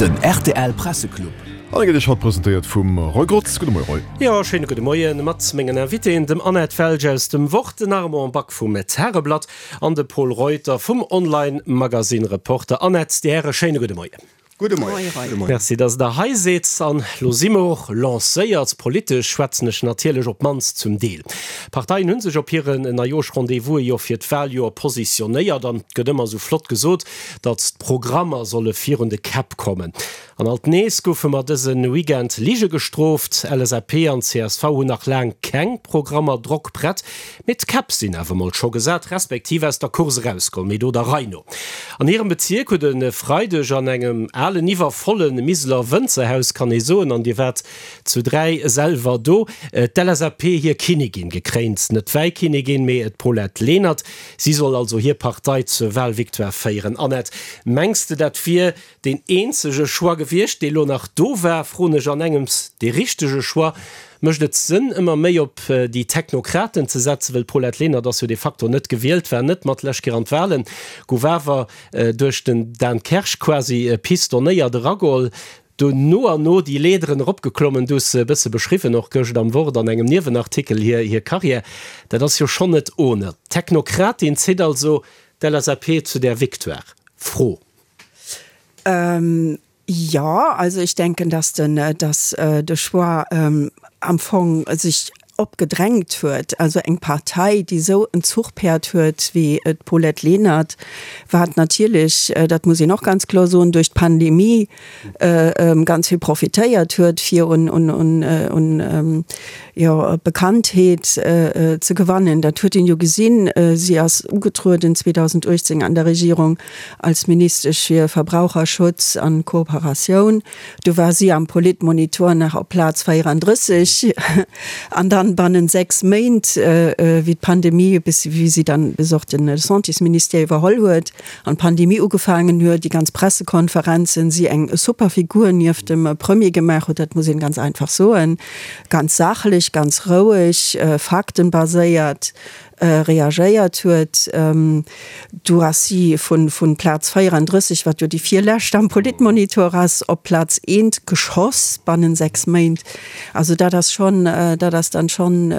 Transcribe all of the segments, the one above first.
Den rtl Presseclub. An e gëtt Iech haut presentéiert vum Roy Grotz. Gudde Moie Roy. Jo, schéine gudde Moien mat mengen Invitéen, dem Annette Welsch aus dem Wort, den Armand Back vum Tageblatt an de Pol Reuter vum Online-Magazine Reporter. Annette, Dir Häre, schéine gudde Moien. Gudde Moien. Merci, dass Der hei sidd. An elo si mer och lancéiert. Politesch schwätzen ech natierlech, op d'mannst zum Deel. D'Parteien hu sech op hiren Neijooschrendez-vouse jo fir d'Waljoer positionéiert an et gëtt ëmmer esou flott gesot, datt d'Programmer solle virun de Käpp kommen. An alt nees goufe mer dëse Weekend Lige gestrooft. LSAP an csv hunn nach laang keng Programmer drockprett, Mee d'Käpp sinn awer mol scho gesat, respektiv aus der Course erausgeholl, mee do der Rei no. An hirem Bezierk huet e Freideg an engem alen, iwwervolle Miseler Wënzerhaus, kann ee soen, an dir waart zu 3 selwer do, d'LSAP hir Kinnigin gekréint. Net d'Wäikinnigin, mee d'Paulette Lenert. Si soll also hir Partei zur Wahlvictoire féieren. Annette, mengs de dat wier Deen eenzege Choix gewiescht, dee lo nach do war, froen ech an engems, dee richtege Choix? Mécht et Sënn, ëmmer méi op déi Technokraten ze setzen, wëll d'Paulette Lenert ass jo de facto net gewielt, war net mat lech Keer an d'Wahlen, gouf awer duerch den Dan Kersch quasi pistonnéiert erageholl, do no an no déi Leederen eropgeklommen, du hues se e bësse beschriwwen, och gëscht am Wort an engem Niewenartikel hir hir Carrière, dat ass jo schonn net ohne. D'Technokratin zitt also d'LSAP zu där Victoire? Fro. Ähm, ja, also ich denken, dass den, dass de Choix am Fong sech opgedrängt huet. Also eng Partei, déi esou en Zuchpäerd huet wéi d'Paulette Lenert, wat natierlech, dat muss een och ganz kloer soen, duerch d'Pandemie ganz vill profitéiert huet, fir un, un, un, un jo, Bekanntheet ze gewannen. Dat huet een jo gesinn. Si ass ugetrueden 2018 an der Regierung als Ministesch fir Verbraucherschutz an Kooperatioun. Du war si am Politmonitor nach op Plaz 34 an dann bannen 6 Méint, wéi d'Pandemie, bis wéi si dann bis och de Santésministère iwwerholl huet an d'Pandemie ugefaangen huet, déi ganz Pressekonferenzen, si eng super Figur nieft dem Premier gemaach huet, dat muss een ganz einfach soen, ganz sachlech, ganz roueg, faktenbaséiert. Reagéiert huet. Do ass si vu Plaz 34, wat jo déi virlescht am Politmonitor ass, op Plaz eent geschoss bannen 6 Méint. Also dat ass schonn, dat ass dann schonn,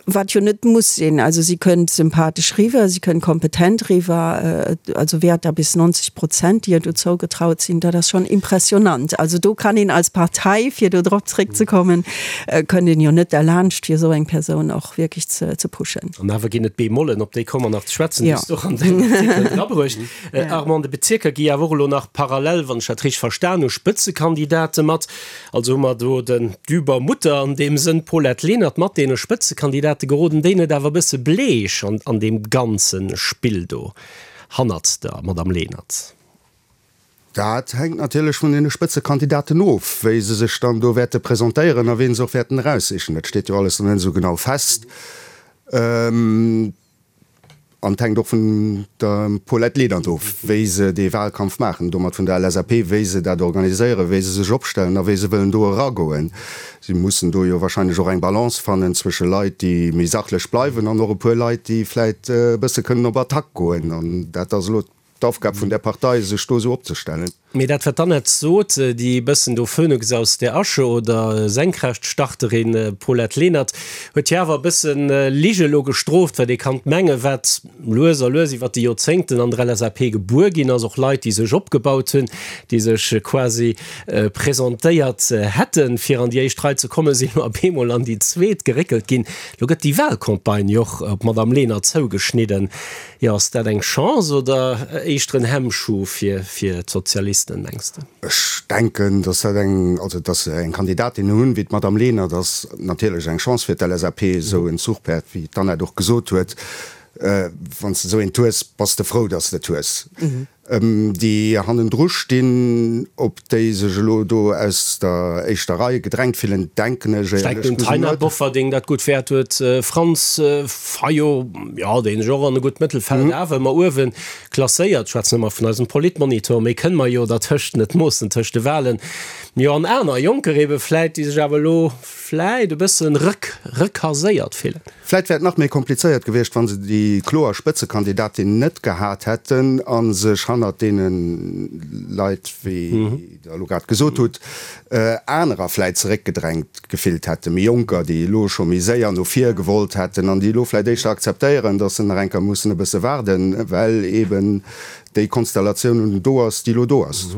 wat jo net muss sinn. Also si kënnt sympathesch riwwer, si kënnt kompetent riwwer, also Wäerter bis 90 Prozent, déi ihr do zougetraut sinn, dat ass schonn impressionant. Also do kann een als Partei, fir do drop zréckzekommen, kënnt een jo net derlaanscht, fir esou eng Persoun och wierklech ze pushen. An awer ginn et Bémollen, op déi komme mer nach ze schwätzen, déi s du och an dengem Artikel drabruecht. Armand, de Bezierker gi awer och elo nach parallel, wann ech dat richteg verstan hu, Spëtzekandidate mat. Also hu mer do den d'Übermutter an deem Sënn, d'Paulette Lenert, mat deene Spëtzekandidate. Geroden déi net awer e bësse bleech an deem ganze Spill do hannert der Madame Lenert? Dat hänkt natierlech vun deene Spëtzekandidaten of, wéi se sech dann do wäerte presentéieren a wien se och wäerten eraussichen. Dat steet jo alles nach net esou genau fest. An et hänkt och vun der Paulette Lenert of, wéi se dee Wahlkampf maachen, domat vun der LSAP, wéi se dat organiséieren, wéi se sech opstellen a wéi se wëllen do eragoen. Si mussen do jo wahrscheinlech och eng Balance fannen zwësche Leit, déi méi sachlech bleiwen an och e puer Leit, déi vläit e bësse kënnen op Attack goen. An dat ass elo d'Aufgab vun där Partei, sech do esou opzestellen. Mee dat, wat d'Annette sot, déi e bëssen do Phönix aus der Asche oder Senkrechtstarterin Paulette Lenert, huet jo awer e bëssen Lige elo gestrooft, wat ee kann mengen, wat lues a lues iwwert déi Joerzéngten an der LSAP gebuer ginn ass, och Leit, déi sech opgebaut hunn, déi sech quasi presentéiert hätten, fir an déi éischt Rei ze kommen, sinn elo op eemol an déi zweet geréckelt ginn. Elo gëtt déi Wahlcampagne jo och op d'Madame Lenert zougeschnidden. Jo, ass dat eng Chance oder éischter en Hemmschuh fir fir d'Sozialisten, mengs de? Ech denken, datt dat eng, also datt se eng Kandidatin hunn wéi d'Madame Lenert, ass natierlech eng Chance fir d'LSAP, esou en Zuchpäerd, wéi d'Annette och gesot huet. Wann s de esou eent hues, bass de frou, datt s de et hues. Déi hannendru stinn, op déi sech elo do aus der éischter Rei gedrängt fillen, denken ech éierlech gesot net. Taina Bofferding dat gutt wäert huet, Franz Fayot, jo, deen sech och an e gutt Mëttelfeld awer ëmmer uewe klasséiert, schwätzen ëmmer vun eisem Politmonitor, méi kënne mer jo dertëscht net moossen, tëscht de Wahlen, jo, an aner Jonker ebe vläit, déi sech awer elo vläit e bëssen rëck, rëckaséiert fillen. Vläit wär et nach méi komplizéiert gewiescht, wa se déi kloer Spëtzekandidatin net gehat hätten a sech hannert deene Leit, wéi Der elo grad gesot hutt, anerer vläit zeréckgedrängt gefillt hätten, méi Jonker, déi elo scho méi séier no vir gewollt hätten an déi elo vläit éischter akzeptéieren, datt se nach eng Kéier mussen e bësse waarden, well eeben déi Konstellatioun do ass, déi elo do ass.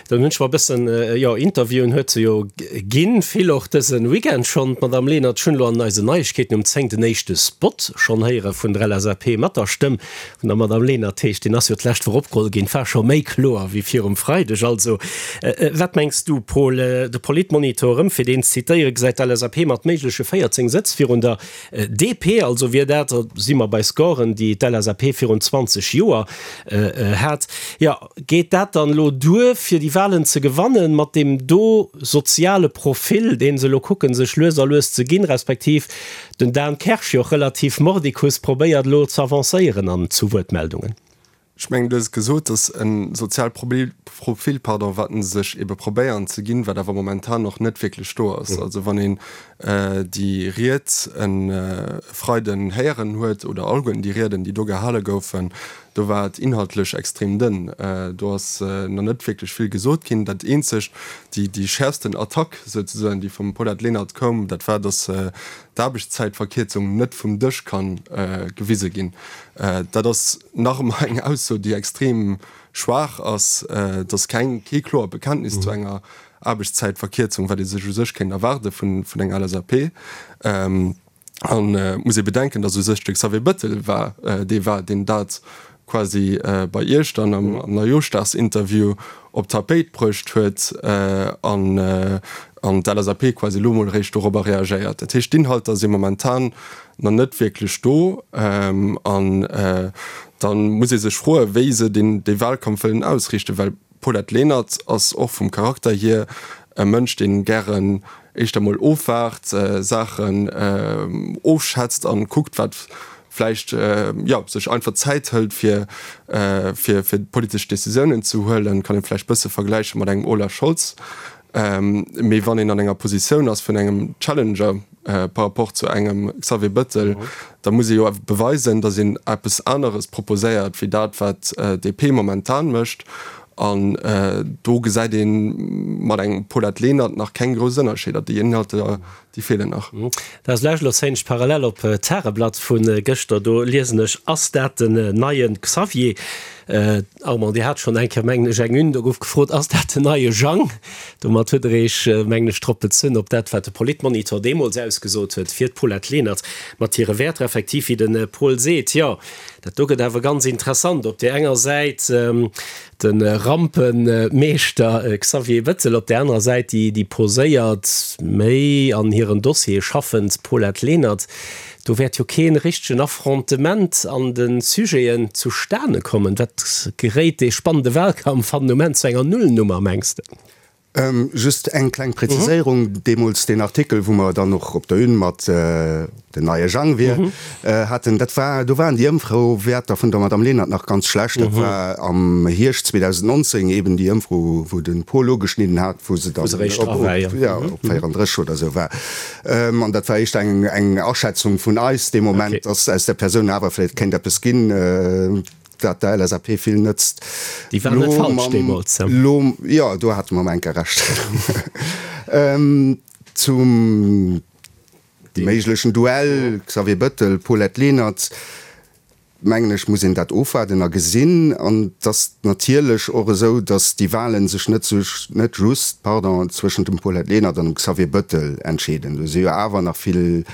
Dann hunn ech mer e bëssen, jo, Interviewen huet se jo ginn, vill och dëse Weekend schonn, d'Madame Lenert. Ech hunn elo an eisen Neiegkeeten um 10 den éischte Spot schonn héiere vun der LSAP mat der Stëmm vun der Madame Lenert. Heescht, deen ass jo d'lescht Woch opgeholl ginn, et war scho méi kloer wéi virum Freideg. Also, wat mengs du, Paul? De Politmonitor, erëm fir deen ze zitéieren, gesäit d'LSAP mat méigleche 14 Sëtz virun der DP, also wier dat, da si mer bei Scoren, déi d'LSAP virun 20 Joer hat. Jo, geet dat dann elo duer, fir déi Wahlen ze gewannen, mat deem do soziale Profil, dee se elo kucken, sech lues a lues ze ginn, respektiv den Dan Kersch jo och relativ mordicus probéiert elo ze avancéieren an zu Wuertmeldungen? Ech mengen, du hues et gesot, dass e soziale Profil, pardon, wat se sech ebe probéieren ze ginn, wat awer momentan och net wierklech do ass. Also wann een déi Ried e Freiden héieren huet, oder alleguerten déi Rieden, déi do gehale goufen, do war et inhaltlech extrem dënn. Do ass nach net wierklech vill gesot ginn. Dat eenzegt, déi, déi schäerfsten Attack souzesoen, déi vum Paulette Lenert koum, dat war, dass d'Aarbechtszäitverkierzung net vum Dësch ka gewise ginn. Dat ass nach ëmmer eng Ausso, déi extrem schwaach ass. Et ass keng, kee kloert Bekenntnis zu enger Aarbechtszäitverkierzung, wat ee sech u sech kéint erwaarde vun enger LSAP. An et muss ee bedenken, datt u sech de Xavier Bettel war dee war, deen dat quasi bei Iech dann am Neijooschdagsinterview op d'Tapéit bruecht huet an an d'LSAP quasi elo mol eréischt dorobber reagéiert. Dat heescht, d'Inhalter si momentan nach net wierklech do an da muss ee sech froen, wéi se deen dee Wahlkampf wëllen ausriichten, well d'Paulette Lenert ass och vum Charakter hier e Mënsch, dee gären éischter mol ofwaart, Saachen ofschätzt an kuckt, wat vläicht, jo, sech einfach Zäit hëlt, fir fir fir politesch Decisiounen ze huelen. Kann ee vläicht bësse vergläiche mat engem Olaf Scholz. Mee wann een an enger Positioun ass vun engem Challenger par rapport zu engem Xavier Bettel, da muss ee jo awer beweisen, datt een eppes aneres proposéiert wéi dat, wat DP momentan mécht. An do gesäit ee mat engem Paulette Lenert nach keng grouss Ënnerscheeder. Déi Inhalter, déi feelen nach. Dat ass lech elo zéien ech parallel op d'Tageblatt vu gëschter. Do liesen ech, Ass dat den neie Xavier? Armand, Dir hat schonn eng Kéier, mengen ech, eng Une, do gouf gefrot, Ass dat den neie Jang? Domat huet Der Iech, mengen ech, drop bezunn, op dat, wat de Politmonitor deemools ausgesot huet fir d'Paulette Lenert mat hire Wäerter. Effektiv, wéi de Paul seet, jo, dat do gëtt awer ganz interessant. Op där enger Säit de Rampemeeschter Xavier Bettel, op där anerer Säit déi poséiert, méi an hiren Dossiere schaffend Paulette Lenert. Do wäert jo kee richtegen Affrontement an de Sujeten zustane kommen. Wat geréit dee spannende Wahlkampf hannen um Enn zu enger Nullnummer, mengs de? Just eng kleng Präziséierung, Deemools deen Artikel, wou mer dann och op der Une mat den neie Jang wier haten, dat war, do waren déi Ëmfrowäerter vun der Madame Lenert nach ganz schlecht. Dat war am Hierscht 2019 eben déi Ëmfro, wou de Paul ugeschnidden hat, wou se dann op 34 oder esou war. An dat war éischter eng eng Aschätzung vun eis dee Moment, dass aus där Persoun awer vläicht kéint eppes ginn, dat der LSAP vill nëtzt. Déi war net falsch deemools. Lo, jo, do hate mer emol eng Kéier Recht. Zum méiglechen Duell Xavier Bettel, Paulette Lenert. mengen ech, muss een dat ofwaarden a gesinn. An et ass natierlech och esou, datt déi Wahlen sech net net just, pardon, zwëschent dem Paulette Lenert an dem Xavier Bettel entscheeden. Do si jo awer nach vill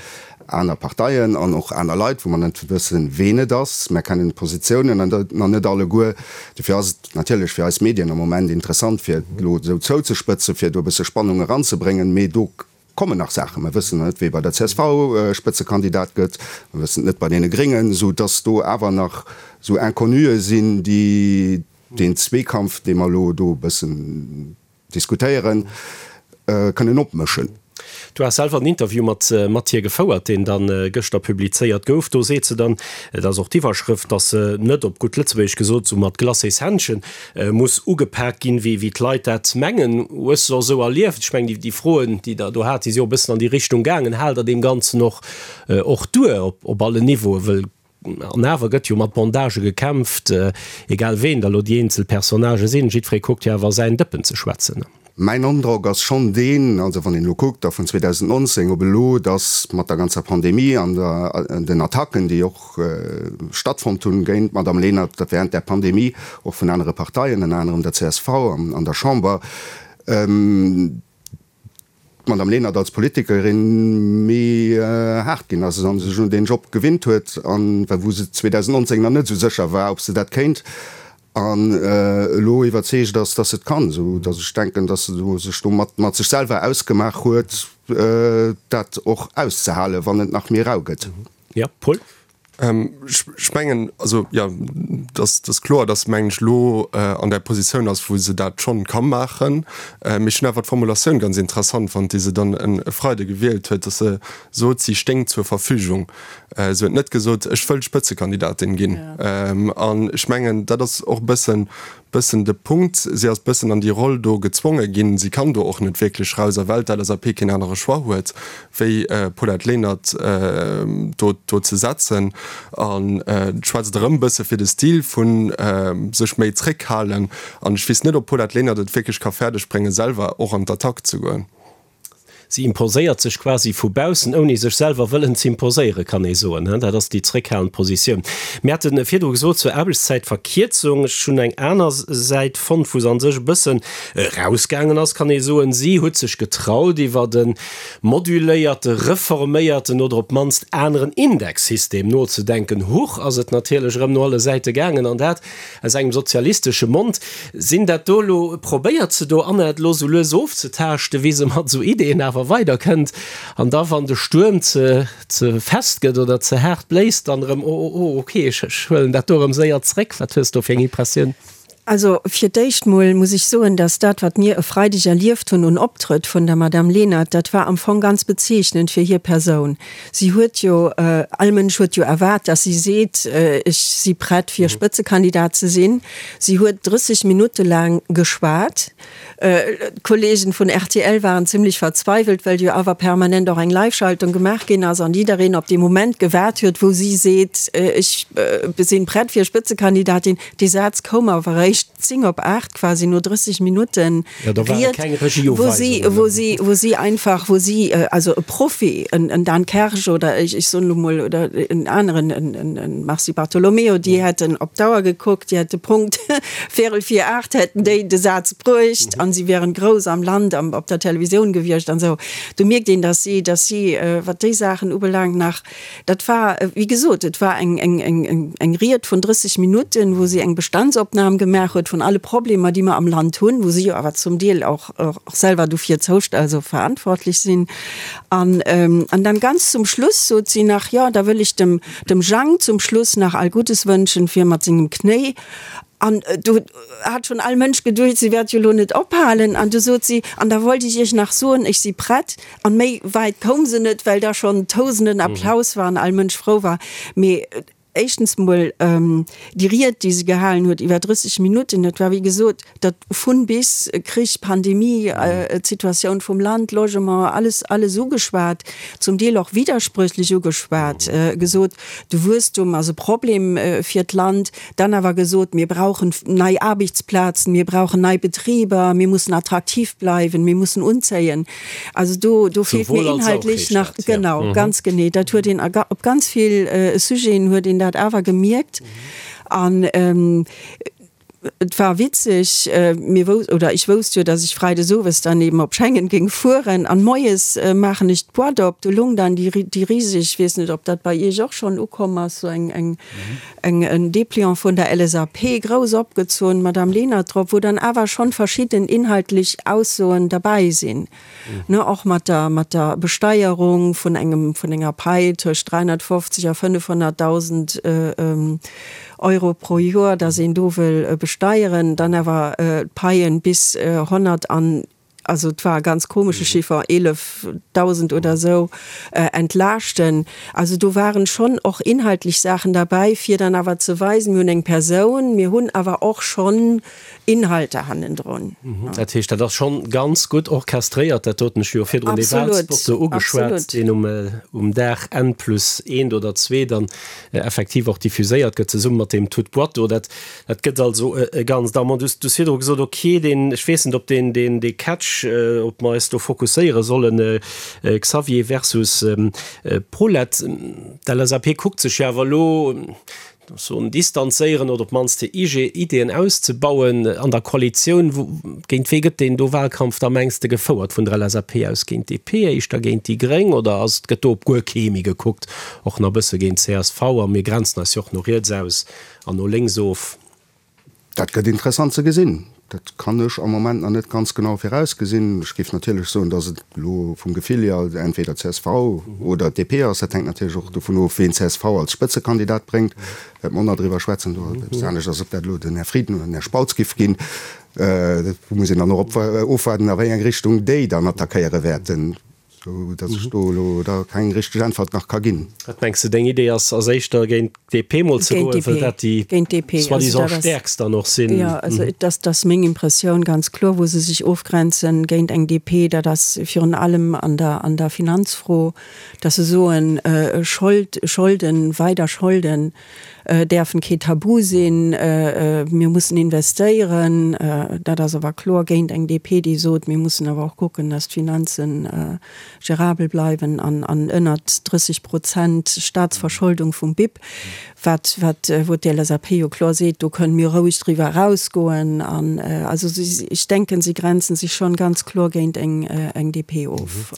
aner Parteien an och aner Leit, wou mer net wëssen, ween et ass. Mer kennen d'Positiounen nach net alleguer. Dofir ass et natierlech fir eis Medien am Moment interessant, fir et elo esou zouzespëtzen, fir do e bësse Spannung eranzebréngen. Mee do Kommen nach Saachen. Mer wëssen net, wee bei der csv Spëtzekandidat gëtt. Mer wëssen et net bei deene Gréngen, esou dass do awer nach esou Inconnuë sinn, déi deen Zweekampf, dee mer elo do e bëssen diskutéieren, kënnen opmëschen. Du has selwer en Interview mat mat hir gefouert, deen dann gëschter publizéiert gouf. Do seet se dann, et ass och d'Iwwerschrëft, dass se net, op gutt Lëtzebuergesch gesot, esou mat Glacéshändchen muss ugepak ginn, wéi wéi d'Leit dat mengen. Hues de och esou erlieft? Ech mengen, déi Froen, déi Der do hat, déi si och e bëssen an déi Richtung gaangen. Haalt Der deem Ganzen och och duer op op allen Niveauen? Wëll. An awer gëtt jo mat Bondagë gekämpft, egal ween da lo déi eenzel Personnagë sinn, jiddweree kuckt jo awer säin Dëppen ze schwätzen. Mäin Androck ass schonn deen, also wann een elo kuckt, da vun 2019 op elo, datt mat der ganzer Pandemie an den Attacken, déi och stattfonnt hunn géint d'Madame Lenert, dat während där Pandemie, och vun anere Parteien, ënner anerem der csv an der Chamber, d'Madame Lenert als Politikerin méi haart ginn ass a sech un deen Job gewinnt huet, an wou se 2019 nach net esou sécher war, ob se dat kéint, an elo iwwerzeegt ass, dass se et kann, esou dass ech denken, dass se sech do mat sech selwer ausgemaach huet, dat och auszehalen, wann et nach méi rau gëtt. Jo, Paul? Ech mengen, also jo, dass ass kloer, dass se, mengen ech, elo an där Positioun ass, wou se dat schonn ka maachen. Mee ech hunn awer d'Formulatioun ganz interessant fonnt, déi se dann e Freide gewielt huet, dass se sot, si stéing zur Verfügung. Se huet net gesot, ech wëll Spëtzekandidatin ginn. An ech mengen, dat ass och e bëssen bëssen de Punkt. Si ass bëssen an déi Roll do gezwonge ginn. Si kann do och net wierklech raus, a well d'LSAP keen anere Choix huet, wéi Paulette Lenert do do ze setzen. An et schwätzt erëm bësse fir de Stil vu sech méi zréckhalen. An ech weess net, ob d'Paulette Lenert et wierklech ka fäerdeg bréngen, selwer och an d'Attack ze goen. Si imposéiert sech quasi vu baussen, ouni sech selwer wëllen z'imposéieren, kann ee soen. Dat ass déi zréckhalend Positioun. Mir hate virdru gesot zur Aarbechtszäitverkierzung, ech hunn eng aner Säit fonnt, wou se a sech e bëssen erausgaangen ass, kann ee soen. Si huet sech getraut, iwwert e moduléierte, reforméierten oder op d'mannst aneren Indexsystem nozedenken. Huch, ass et natierlech erëm no alle Säite gaangen, an dat Aus engem sozialistesche Mond. Sinn dat do elo, probéiert se do Anna et elo sou lues ofzetaaschten, wéi se mat esou Ideeën awer weider kënnt, an da wann de Stuerm ze ze fest gëtt oder ze haart bléist, dann erëm, oh oh oh ok, ech ech huelen dat do erëm séier zréck. Wat hues do fir eng Impressioun? Also fir d'éischt mol muss ech soen, dass dat wat mir e Freideg erlieft hunn un Optrëtt vun der Madame Lenert, dat war am Fong ganz bezeechnend fir hir Persoun. Si huet jo, all Mënsch huet jo erwaart, dass si seet, ech si prett fir Spëtzekandidat ze sinn. Si huet 30 Minutte laang geschwat. D'Kollegen vun rtl waren zimlech verzweiwelt, well jo awer permanent och eng Live-Schaltung gemaach ginn ass an jiddereen op dee Moment gewaart huet, wou si seet, ech sinn prett fir Spëtzekandidatin. Dee Saz koum awer eréischt 10 op 8, quasi no 30 Minutten Ried, wou si, wou si, wou si einfach, wou si, also e Profi, en, en Dan Kersch oder ech, ech soen elo mol, oder en aneren, en, en, en Mars Di Bartolomeo, déi hätten op d'Auer gekuckt, déi hätte Punkt véierel vir 8 hätten déi de Saz bruecht an si wären grouss am Land am, op der Televisioun gewiescht an esou. Do mierkt een, dass si, dass si, wat déi Saachen ubelaangt, nach Dat war, wéi gesot, et war eng, eng, eng, eng Ried vun 30 Minutten, wou si eng Bestandsopnam gemaach huet vun alle Problemer, déi mer am Land hunn, wou si jo awer zum Deel och, och selwer dofir zoust-, also verantwortlech sinn. An, an dann ganz zum Schluss sot si nach, Jo, da wëll ech dem, dem Jang zum Schluss nach all Guddes wënschen fir mat sengem Knéi. An do hat schonn all Mënsch geduecht, si wäert jo elo net ophalen. An du sot si, An da wollt ech Iech nach soen, ech si prett. An méi wäit koum se net, well da schonn tausenden Applaus war an all Mënsch frou war. Mee éischtens mol, déi Ried, déi se gehalen huet iwwer 30 Minutten, dat war wéi gesot dat vun bis, Krich, Pandemie, d'Situatioun vum Land, Logement, alles, alles ugeschwat, zum Deel och widdersprüchlech ugeschwat, gesot, de Wuesstum ass e Problem fir d'Land, Dann awer gesot, mir brauchen nei Aarbechtsplazen, mir brauchen nei Betriber, mir mussen attraktiv bleiwen, mir mussen unzéien. Also do, do feelt mir inhaltlech nach, genau, ganz genee. Dat huet een op ganz vill Sujeten huet een dat awer gemierkt. An et war witzeg, mir wous, oder ech wousst jo, datt ech freides owes dann eben op Schengen géing fueren an moies maachen ech d'Boîte op, do lung dann déi, déi riseg, ech weess net, ob dat bei Iech och schonn ukomm ass, sou eng, eng, eng en Dépliant vun der LSAP, grouss opgezunn, Madame Lenert drop, wou dann awer schonn verschidden inhaltlech Aussoen derbäi sinn, ne, och mat der, mat der Besteierung vun engem, vun enger Pai tëscht 350 a 500.000 Euro pro Joer, dass een do wëll besteieren, dann awer d'Paien bis 100 an. also et war e ganz komesche Chiffer, 11.000 oder esou, entlaaschten. Also do waren schonn och inhaltlech Saachen derbäi, fir dann awer ze weisen, mir hunn eng Persoun, mir hunn awer och schonn Inhalter hannendrun. Dat heescht, dat ass schonn ganz gutt orchestréiert, dat doten. Ech hu jo virdrun dee Wahlspot do ugeschwat, deen um Dag N plus eent oder zwee dann effektiv och diffuséiert gëtt, zesumme mat deem Tout boîte do. Dat Dat gëtt also e Ganzt. Armand, du hues virdru gesot, okay, deen, ech weess net, ob deen, deen, dee Catch, ob mer eis do fokusséiere sollen, Xavier versus Paulette. D'LSAP kuckt sech jo awer elo, soen, distanzéieren oder op d'mannst hir Ideeën auszebauen an der Koalitioun. Géint wee gëtt deen do Wahlkampf da, mengs de, gefouert vun der LSAP aus? Géint d'DP éischter, géint déi Gréng oder ass, gëtt do op guer kee méi gekuckt, och nach e bësse géint csv? A mir grenzen eis jo och no riets aus. An no lénks of. Dat gëtt interessant ze gesinn. Dat kann ech am Moment nach net ganz genau virausgesinn. Ech géif natierlech soen, datt et elo vum Gefill hier entweder csv oder DP ass. Dat hänkt natierlech och dovun of, ween csv als Spëtzekandidat bréngt. Wäerte mer och nach driwwer schwätzen. Do ass eppes anescht ass, ob dat elo den Här Frieden oder den Här Spautz giff ginn. Do muss een dann och ofwaarden, a wéi eng Richtung déi dann attackéiere wäerten. Sou datt ech do elo da keng richteg Äntwert nach ka ginn. Wat mengs de, deng Idee ass ass éischter géint d'DP mol ze goen, wëll dat déi soi-disant stäerkst dann och sinn? Jo, also dat ass meng Impressioun ganz kloer, wou se sech ofgrenzen géint eng DP, dat ass virun allem an der an der Finanzfro, datt se soen, Schold, Scholden, weider Scholden däerfen kee Tabu sinn, mir mussen investéieren. Dat ass awer kloer géint eng DP, déi sot, mir mussen awer och kucken, datt d'Finanze gérabel bleiwen an ënnert 30 Prozent Staatsverscholdung vum BIP, wat, wat, wou d'LSAP jo kloer seet, do kënnen mir roueg driwwer erausgoen. An also ech denken, si grenzen sech schonn ganz kloer géint eng DP of.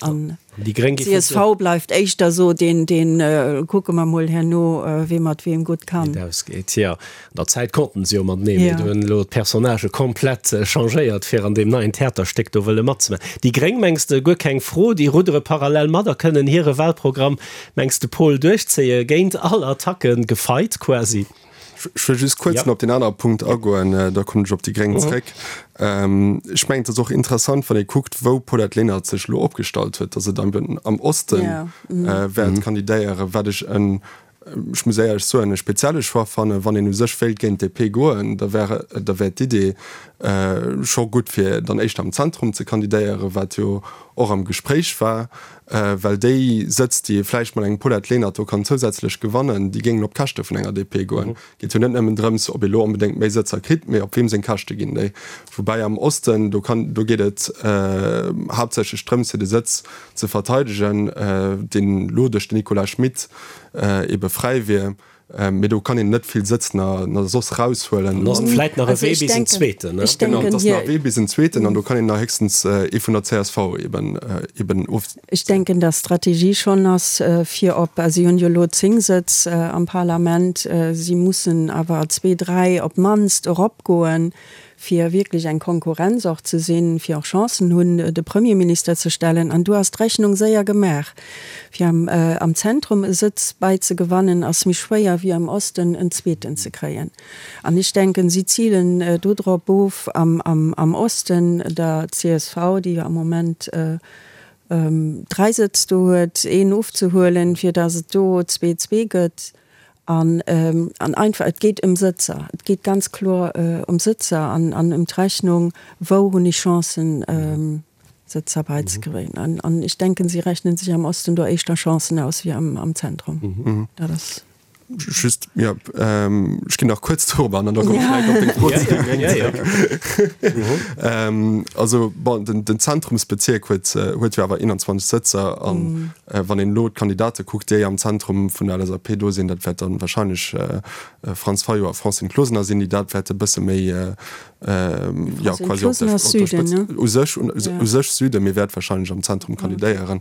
Déi Gréng gi vun. Csv bleift éischter esou deen, deen, kucke mer mol herno, wee mat weem gutt kann. Wéi et ausgeet, jo. An der Zäit konnten se jo matenee, mee do hunn elo d'Personnagë komplett changéiert, fir an deem neien Theaterstéck do wëlle matzemaachen. Déi Gréng, mengs de, guer keng Fro, déi ruddere parallel mat a kënnen hire Wahlprogramm, mengs de, Paul, duerchzéie géint all Attacken, gefeit quasi? Ech wëll just kuerz nach op deen anere Punkt agoen, da kommen ech op déi Gréng zréck. Ech mengen, et ass och interessant, wann ee kuckt, wou d'Paulette Lenert sech elo opgestallt huet, datt se dann am Oste wäert kandidéieren, wat ech en, ech muss éierlech soen, e spezielle Choix fannen. Wann een u sech wéilt géint d'DP goen, da wär, da wär d'Idee scho gutt, fir dann éischter am Zentrum ze kandidéieren, wat jo och am Gespréich war. Well déi Sëtz, déi ee vläicht mat engem Paulette Lenert do kann zousätzlech gewannen, déi géingen op d'Käschte vun enger DP goen. Et geet jo net nëmmen drëms, ob ee lo onbedéngt méi Sëtzer kritt, mee op weem seng Käschte ginn déi. Woubäi am Osten, do kann, do geet et haaptsächlech drëms, fir de Sëtz ze verteidegen, deen elo duerch den Nicolas Schmit ebe fräi wier. Mee do kann een net vill Sëtz na soss raushuelen. Dann ass et vläit nach e Wee bis en zweeten, ne? Genau, et ass nach e Wee bis en zweeten an do kann een nach héchstens ee vun der csv eben eben of. Ech denken, dass d'Strategie schonn ass, fir op, si hunn jo elo 10 Sëtz am Parlament, si mussen awer zwee, dräi op d'mannst eropgoen, fir wierklech eng Konkurrenz och ze sinn, fir och Chancen hunn, de Premierminister ze stellen. An do ass d'Rechnung séier gemaach. Fir am Zentrum e Sëtz bäizegewannen, ass méi schwéier wéi am Osten en zweeten ze kréien. An ech denken, si zilen do drop of, am Osten der csv, déi jo am Moment 3 Sëtz do huet, een ofzehuelen, fir datt et do zwee-zwee gëtt. An einfach, et geet ëm Sëtzer. Et geet ganz kloer ëm Sëtzer an ëm d'Rechnung, wou hunn ech Chancen, Sëtzer beizekréien. An ech denken, si rechnen sech am Osten do éischter Chancen aus wéi am Zentrum. Dat ass. Just, jo, ech ginn nach kuerz dorop an, an da komme ech vläicht op deng Fro zu de Gréngen zeréck. Also, bon, den Zentrumsbezierk huet jo awer 21 Sëtzer an Wann een elo d'Kandidate kuckt, déi am Zentrum vun der LSAP do sinn, dat wäert dann wahrscheinlech Franz Fayot a Francine Closener sinn, déi dat wäerte bësse méi, jo, quasi op der Spëtzt, u sech, u sech Süden, mee wäert wahrscheinlech am Zentrum kandidéieren.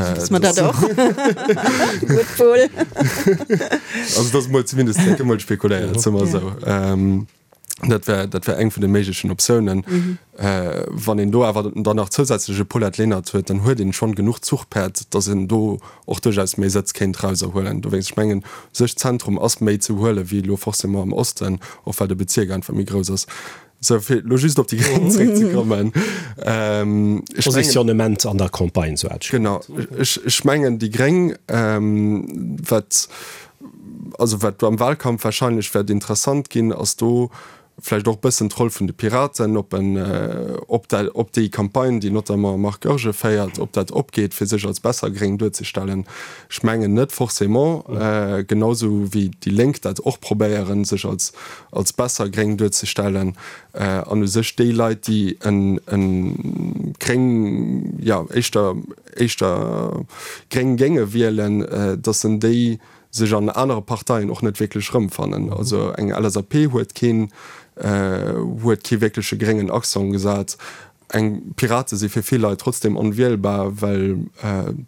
Also dat ass emol zumindest emol spekuléiert, soe mer esou. Dat wär, dat wär eng vun de méiglechen Optiounen. Mhm. Äh, wann een do awer dann nach zousätzlech e Paulette Lenert huet, dann huet een schonn genuch Zuchpäerd, datt een do och duerchaus méi Sëtz kéint erauserhuelen. Dowéinst, ech mengen, u sech Zentrum ass méi ze huele wéi elo forcément am Osten, och well de Bezierk einfach méi grouss ass. Sou, fir elo just op déi Gréng zréckzekommen, ech mengen. Positionnement an der Campagne, sou hat ech Genau, ech, ech mengen déi Gréng, wat, also wat am Wahlkampf wahrscheinlech wäert interessant ginn, ass do vläicht och e bëssen d'Roll vun de Piraten, ob en, ob dat, ob déi Campagne, déi notamment Marc Goergen féiert, ob dat opgeet, fir sech als besser gréng duerzestellen. Ech mengen net forcément, genau sou wéi déi Lénk dat och probéieren, sech als, als besser gréng duerzestellen an u sech déi Leit, déi en, en gréng, jo, éischter, éischter gréng géinge wielen, datt en déi sech an anere Parteien och net wierklech erëmfannen. Also eng LSAP huet keen, huet kee wierkleche gréngen Accent gesat. Eng Pirate si fir vill Leit trotzdem onwielbar, well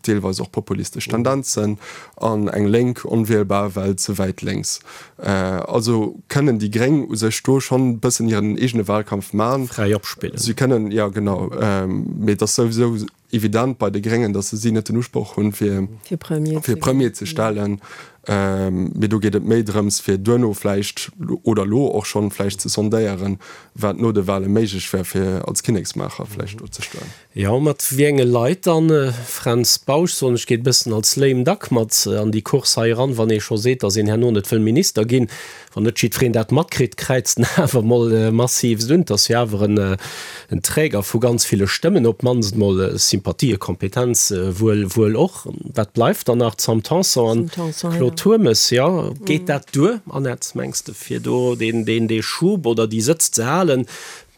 deelweis och populistesch Tendenzen, an eng Lénk onwielbar, well ze wäit lénks. Also kënnen déi Gréng u sech do schonn e bëssen hiren eegene Wahlkampf man. Fräi opspillen. Si kënnen, jo genau, mee et ass souwisou evident bei de Gréngen, datt se si net den Usproch hunn, fir fir Premier ze stellen. Mee do geet et méi drëms, fir duerno vläicht oder elo och schonn vläicht ze sondéieren, wat no de Wahle méiglech wär, fir als Kinneksmaacher vläicht do ze stoen. Jo, mat wéi enge Leit dann? Fränz Bausch, soen ech, geet e bëssen als lame duck mat an déi Course hei eran, wann ee scho seet, datt een herno net wëll Minister ginn. Wann net jiddwereen dat matkritt, kräizt en awer mol massivst un. 't ass jo awer en Träger vu ganz ville Stëmmen, op d'mannst mol Sympathie, Kompetenz wuel wuel och. Wat bleift dann nach? D'Sam Tanson an Claude Turmes. Jo, geet dat duer, Annette, mengs de, fir do deen dee Schub oder déi Sëtz ze halen,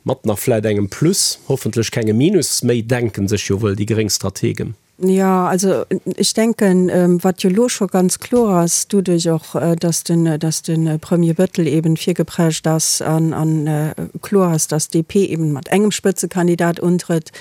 mat nach vläit engem Plus, hoffentlech kengem Minus méi, denken sech jo wuel déi gréng Strategen. Jo, also ech denken, wat jo elo scho ganz kloer ass, doduerch och, dass den, dass de Premier Bettel eben virgeprescht ass an a kloer ass, dass d'DP eben mat engem Spëtzekandidat untrëtt,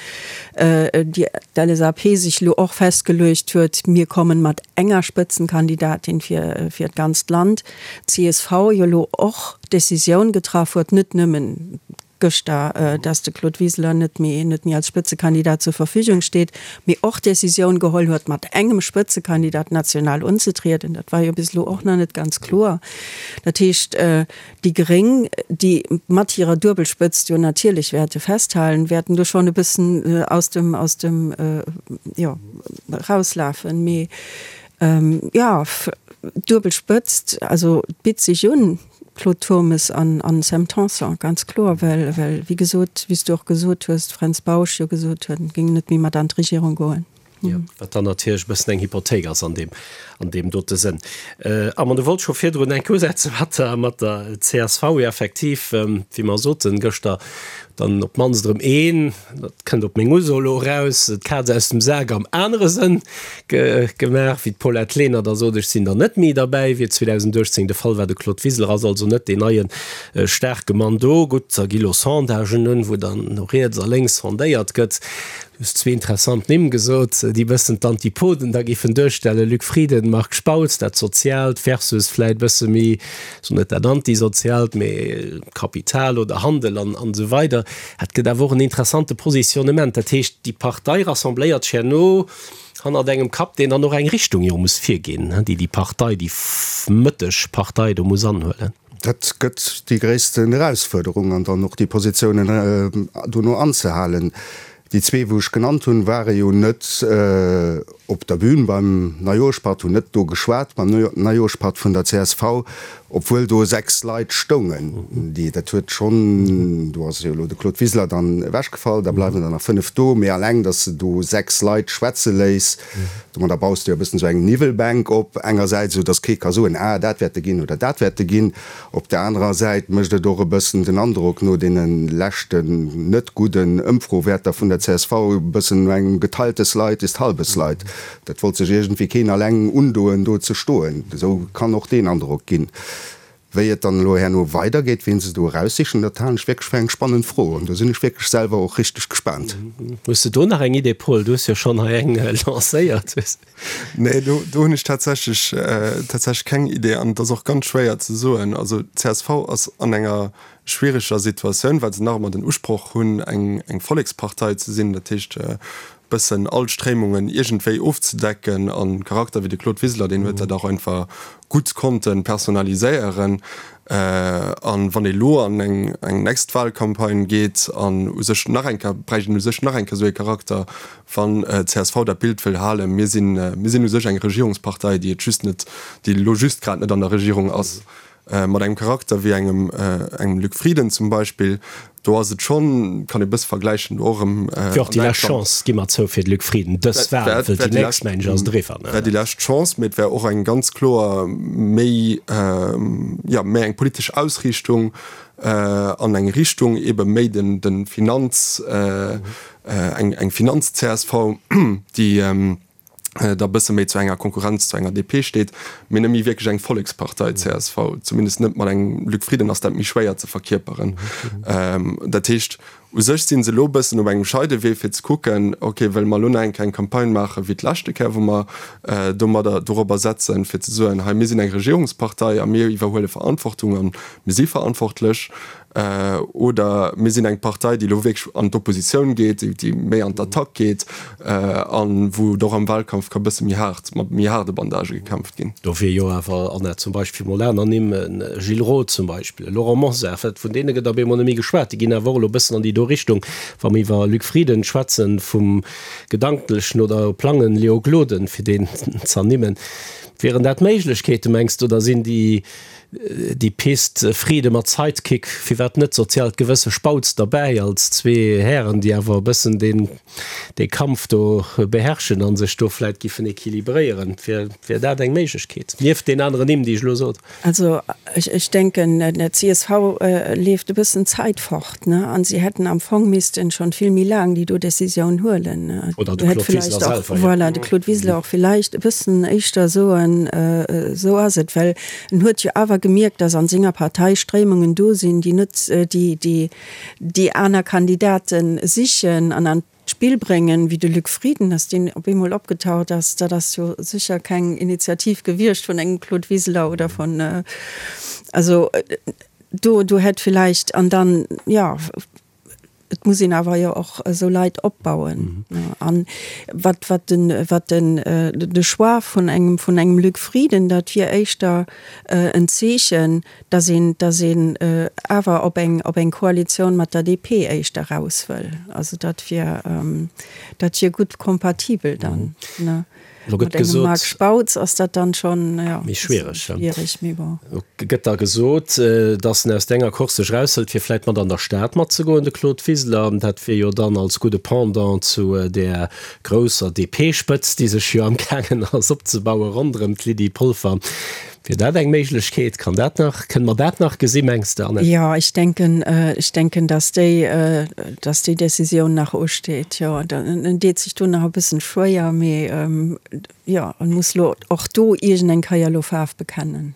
déi d'LSAP sech elo och festgeluecht huet, mir kommen mat enger Spëtzenkandidatin fir, fir d'ganzt Land, d'CSV jo elo och d'Decisioun getraff huet, net nëmmen gëschter, dass de Claude Wiseler net méi net méi als Spëtzekandidat zur Verfügung steet, mee och d'Decisioun geholl huet, mat engem Spëtzekandidat national unzetrieden. Dat war jo bis elo och nach net ganz kloer. Dat heescht, déi Gréng, déi mat hirer Duebelspëtzt jo natierlech wäerte festhalen, wäerten do schonn e bëssen aus dem aus dem jo erauslafen. Mee jo, Duebelspëtzt, also et bitt sech un. Claude Turmes an an Sam Tanson, ganz kloer, well, well wéi gesot, wéi s du och gesot hues, Fränz Bausch jo gesot huet, en géing net méi mat an d'Regierung goen. Jo, wat dann natierlech e bëssen eng Hypothéik ass an deem, an deem dote Sënn. Armand, du wollt scho virdrun enk usetze mat der, mat der csv. Jo, effektiv, wéi mer soten gëschter, dann op d'mannst erëm een, dat kënnt op meng Uso elo eraus, d'Kaz aus dem Sak am anere Sënn gemaach, wéi d'Paulette Lenert da sot, ech sinn dann net méi derbäi, wéi et 2018 de Fall war. De Claude Wiseler ass also net deen neie staarke Mann do. Gutt, da gi lo Sondagen un, wou dann no riets a lénks sondéiert gëtt. Du hues zwee interessant Nimm gesot, déi bëssen d'Antipoden da géifen duerstellen, Luc Frieden, Marc Spautz, dat Soziaalt versus vläit bësse méi, soen net dat Antisoziaalt, mee Kapital oder Handel an esou weider. Dat gëtt awer och en interessante Positionnement. Dat heescht, déi Partei rassembléiert sech herno hannert engem Kapp, deen dann och eng Richtung jo muss virginn, déi déi Partei, déi mëtteg Partei do muss anhuelen. Dat gëtt déi gréissten Erausfuerderung an dann och déi Positiounen dono anzehalen. Déi zwee, wou ech genannt hunn, ware jo net op der Bühn beim Neijoerschpatt, hunn net do geschwat beim Neijoerschpatt vun der csv, obwuel do 6 Leit stoungen, déi, dat huet schonn, do ass jo elo de Claude Wiseler dann ewechgefall, da bleiwen der nach 5 do, mee alleng, datt s de do 6 Leit schwätze léiss, domadder baus de jo e bëssen esou eng Niwwelbänk op engersäits, esou datt kee ka soen, ah dat wäerte ginn oder dat wäerte ginn. Op der anerer Säit mécht et och e bëssen den Androck, no deene leschten net gudden Ëmfrowäerter vun der csv, e bëssen no engem geteiltes Leid ist halbes Leid. Dat wollt sech iergendwéi keen alleng undoen, do ze stoen. Esou kann och deen Androck ginn. Wéi et dann elo herno weidergeet, wien se do eraussichen, dat halen ech wierklech fir eng spannend Fro. An do sinn ech wierklech selwer och richteg gespaant. Hues de do nach eng Idee, Paul? Du hues jo schonn hei eng lancéiert. Nee, do, do hunn ech tatsächlech, tatsächlech keng Idee an et ass och ganz schwéier ze soen. Also csv ass an enger schwiereger Situatioun, well se nach ëmmer den Usproch hunn, eng, eng Vollekspartei ze sinn, dat heescht e bëssen all Stréimungen iergendwéi ofzedecken. An Charakter wéi de Claude Wiseler, deen huet dat och einfach gutt konnte personaliséieren. An wann ee lo an eng eng nächst Wahlcampagne geet an u sech nach eng Kéier, bräicht een u sech nach eng Kéier esou ee Charakter, wann csv dat Bild wëll halen, mir sinn, mir sinn u sech eng Regierungspartei, déi et just net, déi elo just grad net an der Regierung ass. Mat engem Charakter wéi engem engem Luc Frieden zum Beispill, do ass et schonn, kann ee bësse vergläichen, do och erëm. Wier och déi lescht Chance, gi mer zou, fir de Luc Frieden, dës Wahl, wëll déi nächst, mengen ech, ass et eriwwer. Wär déi lescht Chance, mee et wär och eng ganz kloer méi, jo, méi eng politesch Ausriichtung an eng Richtung ebe méi den de Finanz, eng eng Finanz-CSV, déi da bësse méi zu enger Konkurrenz zu enger DP steet, mee net méi wierklech eng Vollekspartei csv, zumindest net mat engem Luc Frieden ass dat méi schwéier ze verkierperen. Dat heescht, u sech si se elo e bëssen op engem Scheidewee fir ze kucken, ok, wëlle mer elo nach eng Kéier eng Campagne maache wéi d'leschte Kéier, wou mer domadder dorobber setzen, fir ze soen, hei mir sinn eng Regierungspartei a mir iwwerhuele Verantwortung a mir si verantwortlech, Oder mir sinn eng Partei, déi elo wierklech an d'Oppositioun geet, déi méi an d'Attack geet a wou et och am Wahlkampf ka bësse méi haart, mat méi haarde Bandagë gekämpft ginn. Do wier jo awer, Anna, zum Beispill mol aner Nimm, e Gilles Roth zum Beispill, e Laurent Mosar, wat vun deene gëtt op eemol net méi geschwat. Déi ginn awer och elo e bëssen an déi do Richtung, wa mer iwwer Luc Frieden schwätzen, vum gedanklechen oder Plangen Léo Gloden, fir deen z'ernimmen. Wieren dat Méiglechkeeten, mengs de, oder sinn déi Déi Pist Friede mat Sidekick, firwat net soziaalt Gewësse Spautz derbäi, als zwee Hären, déi awer e bëssen deen dee Kampf do beherrschen a sech do vläit giffen equilibréieren. Wier wier dat eng Méiglechkeet, nieft deen aneren Nimm, déi ech elo sot? Also ech ech denken, der csv leeft e bëssen d'Zäit fort, ne, an si hätten am Fong missten schonn vill méi laang déi do Décisioun huelen, ne. Oder de Claude Wiseler selwer, jo. Voilà, de Claude Wiseler och villäicht e bëssen éischter soen, esou ass et, well En huet jo awer gemierkt, datt an senger Partei Stréimungen do sinn, déi net déi déi aner Kandidate sichen an an d'Spill bréngen, wéi de Luc Frieden, datt deen op eemol opgetaucht ass. Dat ass jo sécher keng Initiativ gewiescht vun engem Claude Wiseler oder vun, also do do hätt villäicht an dann, jo. Et muss een awer jo och esou Leit opbauen. An wat, wat den, wat den, de Choix vun engem, vun engem Luc Frieden, dat wier éischter en Zeechen, datt een, datt een awer op eng, op eng Koalitioun mat der DP éischter eraus wëll. Also dat wier, dat wier gutt kompatibel dann. Lo gëtt gesot. Marc Spautz ass dat dann schon ja, méi schwiereg. Schwiereg, mee bon. Lo gëtt da gesot, datt en aus denger Course sech eraushëlt, fir vläit mat an der Stad matzegoen, de Claude Wiseler. Dat wier jo dann als gudde Pendant zu där grousser DP-Spëtzt, déi sech jo amgaangen ass opzebauen ronderëm d'Lydie Polfer. Wier dat eng Méiglechkeet? Kann dat nach, kënne mer dat nach gesi mengs de, Annette? Jo, ech denken, ech denken, datt déi, datt déi Décisioun nach usteet. Jo, en deet sech do nach e bëssen schwéier, mee jo, en muss lo och do iergend eng Kéier lo Faarf bekennen.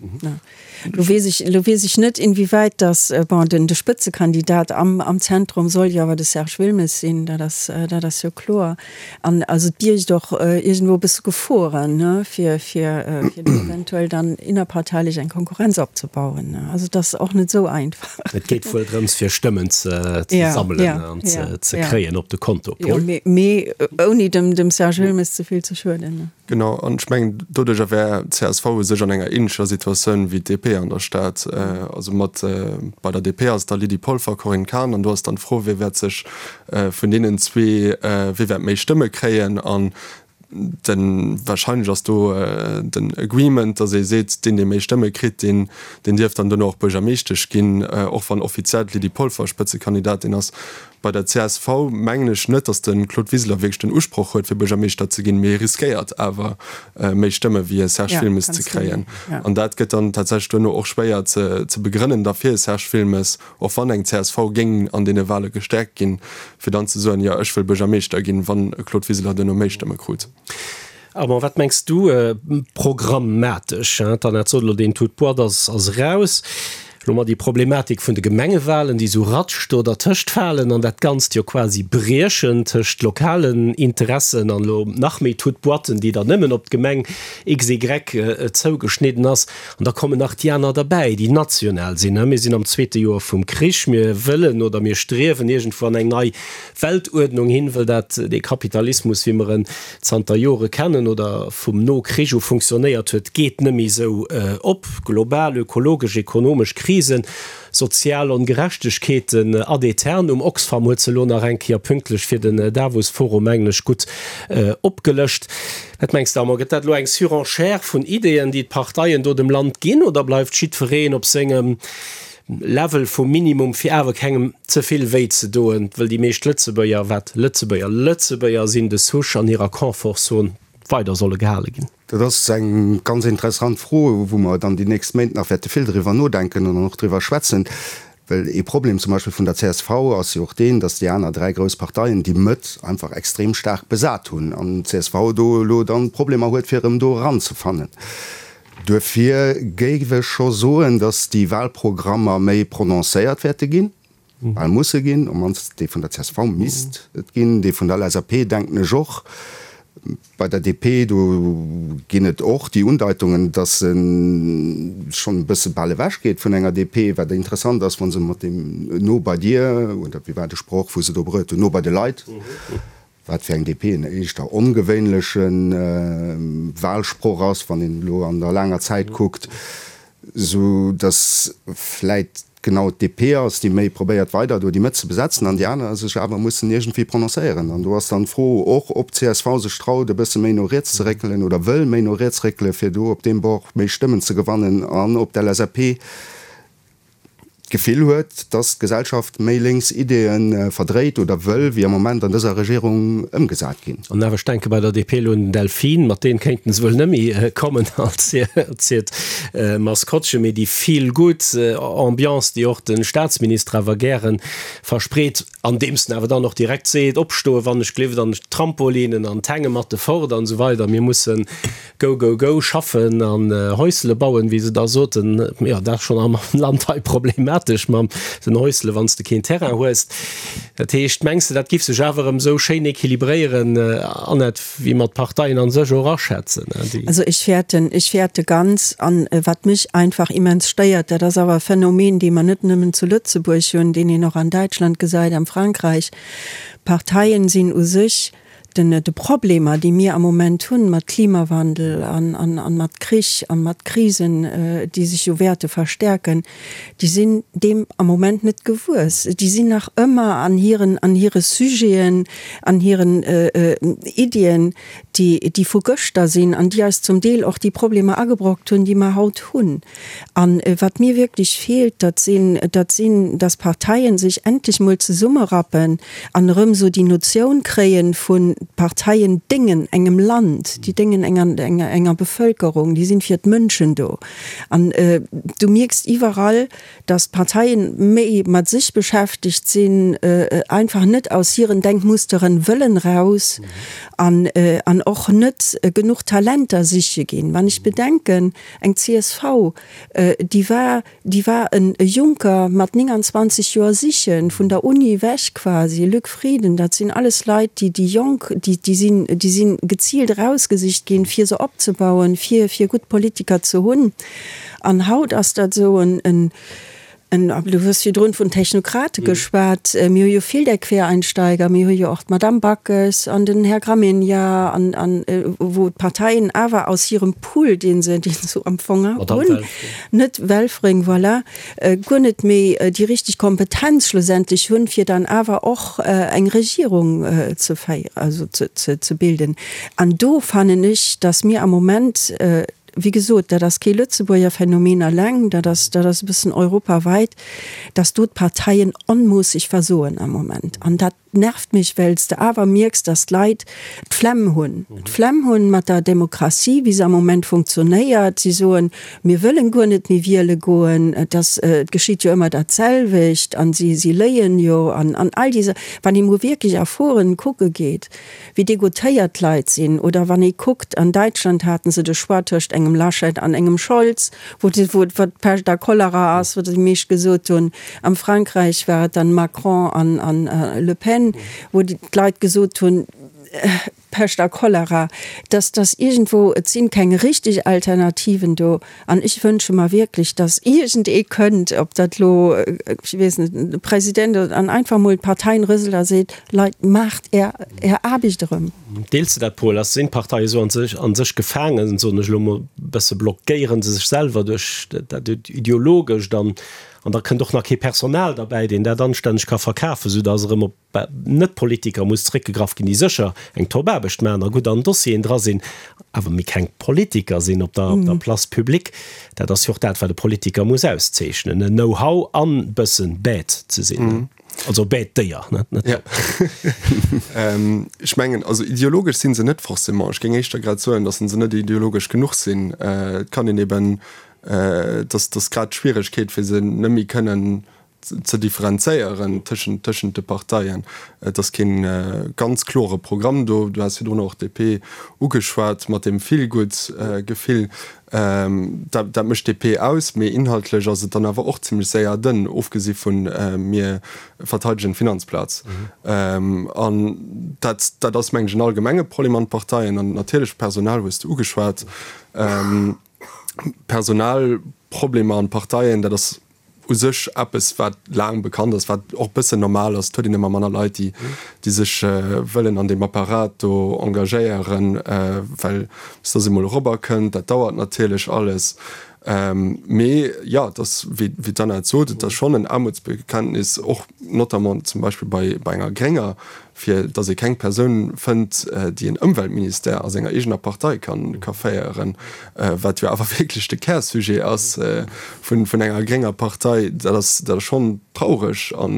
Lo weess ech, lo weess ech net, inwiewäit datt, bon, den, de Spëtzekandidat am, am Zentrum soll jo awer de Serge Wilmes sinn, dat ass, dat ass jo kloer. An also et biergt och iergendwou e bësse Geforen, ne, fir, fir, fir do eventuell dann innerparteilech eng Konkurrenz opzebauen, ne. Also et ass och net esou einfach. Et geet wuel drëms, fir Stëmmen ze, ze sammelen an ze, ze kréien op de Konto. Paul? Jo, mee, mee ouni dem, dem Serge Wilmes ze vill ze schueden, ne. Genau, an ech mengen, doduercher wär csv u sech an enger ähnlecher Situatioun wéi d'DP an der Stad. Also mat, bei der DP ass et da Lydie Polfer, Corinne Cahen, an do ass dann d'Fro, wie wäert sech vun deenen zwee, wie wäert méi Stëmme kréien. An de wahrscheinlech ass do den Agreement, datt ee seet, deen, dee méi Stëmme kritt, deen, deen dierf dann duerno och Buergermeeschtesch ginn, och wann offiziell d'Lydie Polfer Spëtzekandidatin ass. Bei der csv mengen ech net, datt de Claude Wiseler wierklech den Usproch huet, fir Buergermeeschter ze ginn, mee hie riskéiert awer méi Stëmme wéi e Serge Wilmes ze kréien. An dat gëtt dann tatsächlech duerno och schwéier ze begrënnen da fir e Serge Wilmes, och wann eng csv géing an deene Wahle gestäerkt ginn, fir dann ze soen, jo ech wëll Buergermeeschter ginn, wann e Claude Wiseler duerno méi Stëmme krut. Armand, wat mengs du programmatesch? D'Annette sot elo, deen Tout boîte ass eraus. Elo mat déi Problematik vun de Gemengewahlen, déi esou ratsch do dertëscht falen an dat Ganzt jo quasi briechen tëscht lokalen Interessen an elo nach méi Tout boîten, déi dann nëmmen op d'Gemeng XY zougeschnidden ass. An da kommen nach déi aner derbäi, déi national sinn. Mir sinn am zweete Joer vum Krich. Mir wëllen oder mir striewen iergendwou an eng nei Weltuerdnung hin, wëll dat dee Kapitalismus, wéi mer en zanter Jore kennen oder vum No-Krich u funktionéiert huet, geet net méi esou op. Global ökologesch, ekonomesch Krisen. Krisen, sozial Ongerechtegkeeten ad aeternum. Oxfam huet se elo nach eng Kéier pünktlech fir den Davos-Forum, mengen ech, gutt opgelëscht. Wat mengs de, Armand, gëtt dat elo eng Surenchère vun Ideeën, déi d'Parteien do dem Land ginn, oder bleift jiddwereen op sengem Level vum Minimum, fir awer kengem ze vill wéi ze doen, wëll déi meescht Lëtzebuerger, wat Lëtzebuerger Lëtzebuerger sinn, de Souche an hirer Confortzon weider solle gehale ginn? Dat ass eng ganz interessant Fro, wou mer dann déi nächst Méint nach wäerte vill driwwer nodenken an och driwwer schwätzen. Well ee Problem zum Beispill vun der csv ass jo och deen, datt déi aner dräi grouss Parteien déi Mëtt einfach extrem staark besat hunn an d'CSV do elo dann Problemer huet, fir erëm do eranzefannen. Duerfir géif ech scho soen, datt déi Wahlprogrammer méi prononcéiert wäerte ginn, bal musse ginn, op mannst dee vun der csv misst et ginn, dee vun der LSAP denken ech och. Bei der DP, do ginn et och déi Undeitungen, datt se schonn e bësse bal ewech geet vun enger DP, wat interessant ass, wa se mat deem No bei dir, oder wéi war de Sproch, wou se do bruet hunn, No bei de Leit, wat fir eng DP en éischter ongewéinleche Wahlsproch ass, wann een elo an der laanger Zäit kuckt, sou datt vläit genau d'DP ass, déi méi probéiert weider do déi Mëtt ze besetzen an déi aner sech awer mussen iergendwéi prononcéieren. An do ass dann d'Fro och, ob d'CSV sech traut e bësse méi no riets ze réckelen oder wëll méi no riets réckelen, fir do op deem Bord méi Stëmmen ze gewannen an ob d'LSAP d'Gefill huet, dass d'Gesellschaft méi lénks Ideeë verdréit oder wëll, wéi am Moment an dëser Regierung ëmgesat ginn. An awer, ech denke bei der DP elo un den Delfin, mat deem kéinten se wuel net méi kommen als hiert Maskottchen, mee déi feel-good Ambiance, déi och de Staatsminister awer gäre verspreet, andeems en awer dann och direkt seet, Opstoe wann ech gleeft an d'Trampolinen an d'Hänge mat de fort an esou weider, mir mussen Go, go, go, schaffen an Häusele bauen, wéi se da soten. Jo, dat ass schonn am Land hei problematesch mam den Häusele, wann s de keen Terrain hues. Dat heescht, mengs de, dat giff sech awer erëm esou schéin equilibréieren, Annette, wéi mer d'Parteien a sech och aschätzen, déi. Also ech fäerten, ech fäerte ganz. An wat mech einfach immens stéiert, dat ass awer e Phänomen, dee mer net nëmmen zu Lëtzebuerg hunn, deen een och an Däitschland gesäit, am Frankräich, D'Parteien sinn u sech Den, de Problemer, déi mir am Moment hunn mat Klimawandel an, an, an mat Krich an mat Krisen, déi sech jo wäerte verstärken, déi sinn deem am Moment net gewuess. Déi sinn nach ëmmer an hiren, an hire Sujeten, an hiren Iddien, déi, déi vu gëschter sinn an déi eis zum Deel och déi Problemer agebrockt hunn, déi mer haut hunn. An wat mir wierklech feelt, dat sinn, dat sinn, dass d'Parteien sech endlech mol zesummerappen an erëm esou déi Notioun kréien vun, d'Parteien déngen engem Land, déi déngen enger, enger, enger Bevölkerung, déi sinn fir d'Mënschen do. An du mierks iwwerall, dass d'Parteien méi mat sech beschäftegt sinn, einfach net aus hiren Denkmusteren wëllen raus an, an och net genuch Talenter siche ginn. Wann ech bedenken, Eng csv, déi war, déi war en Juncker mat 29 Joer sichen, vun der Uni ewech quasi, Luc Frieden, dat sinn alles Leit, déi, déi jonk, déi, déi sinn, déi sinn geziilt erausgesicht ginn, fir se opzebauen, fir, fir gutt Politiker ze hunn. An haut ass dat esou en, en, En, du hues virdrun vun Technokrate geschwat. Mir hu jo vill där Quereinsteiger. Mir hu jo och d'Madame Backes an den Här Gramegna an, an wou d'Parteien awer aus hirem Pool, dee se, dee se am Fong hunn, net Welfring, voilà, guer net méi déi richteg Kompetenz schlussendlech hunn, fir dann awer och eng Regierung ze féieren, also ze, ze, ze bilden. An do fannen ech, dass mir am Moment, Wéi gesot, dat ass kee Lëtzebuerger Phänomen eleng, dat ass, dat ass e bëssen europaweit, dass do d'Parteien onmoosseg versoen am Moment. An dat nervt mech, well s de awer mierks, dass d'Leit d'Flemm hunn, d'Flemm hunn mat der Demokratie, wéi se am Moment funktionéiert. Si soen, mir wëllen guer net méi wiele goen, et ass, et geschitt jo ëmmer datselwecht an si, si léien jo an, an all déi Sa. Wann ee mol wierklech a Foren kucke geet, wéi degoutéiert d'Leit sinn, oder wann ee kuckt, an Däitschland haten se de Choix tëscht engem Laschet an engem Scholz, wou wou d'Pescht a Cholera ass, wou déi meescht gesot hunn, am Frankräich war et dann Macron an an Le Pen, wou d'Leit gesot hunn, Pescht a Cholera, dass dass iergendwou, et sinn keng richtig Alternativen do. An ech wënsche mer wierklech, dass iergendee kënnt, ob dat elo, ech weess net, de President oder, an einfach emol d'Parteien rëselt a seet, Leit, maacht Är, Är Aarbecht erëm. Deels de dat, Paul? Ass, sinn d'Parteie sou an sech, an sech gefaangen, soen ech elo emol e bësse, blockéiere se sech selwer duerch dat Ideologescht an, an da kënnt och nach kee Personal derbäi, deen dat anstänneg ka verkafen, soudass erëm op Net-Politiker muss zeréckgegraff ginn, déi sécher eng Top-Aarbecht maachen a gutt an Dossieren dra sinn, awer méi keng Politiker sinn op der Place publique. Dat ass jo och dat, wat e Politiker muss auszeechnen, en Know-how an bëssen bête ze sinn, also bête Déier, net top. Ech mengen, also ideologesch si se net forcément. Ech géing éischter grad soen, datt se net ideologesch genuch sinn. Et kann een eben, datt ass grad d'Schwieregkeet, fir se net méi kënnen ze differenzéieren tëschent tëschent de Parteien. Et ass kee ganz klore Programm do. Du has virdrun och d'DP ugeschwat mat deem Feel-Good-Gefill. Dat dat mécht d'DP aus, mee inhaltlech ass et dann awer och zimlech séier dënn, ofgesi vu mir verteidegen d'Finanzplaz. An dat dat ass, meng ech, en allgemenge Problem an de Parteien. An natierlech d'Personal hues de ugeschwat. Personalproblemer an Parteien, dat ass u sech eppes, wat laang bekannt ass, wat och e bëssen normal ass. Et huet een ëmmer manner Leit, déi, déi sech wëllen an deem Apparat do engagéieren, well bis dass ee mol erobber kënnt, dat dauert natierlech alles. Mee jo, et ass, wéi, wéi d'Anna et sot, et ass schonn en Aarmutsbekenntnis, och notamment zum Beispill bei, bei enger Grénger, fir datt ee keng Persoun fënnt, déi en Ëmweltministère a senger eegener Partei ka féieren, wat jo awer wierklech de Kärsujet ass vun enger grénger Partei, dat ass dat ass schonn traureg. A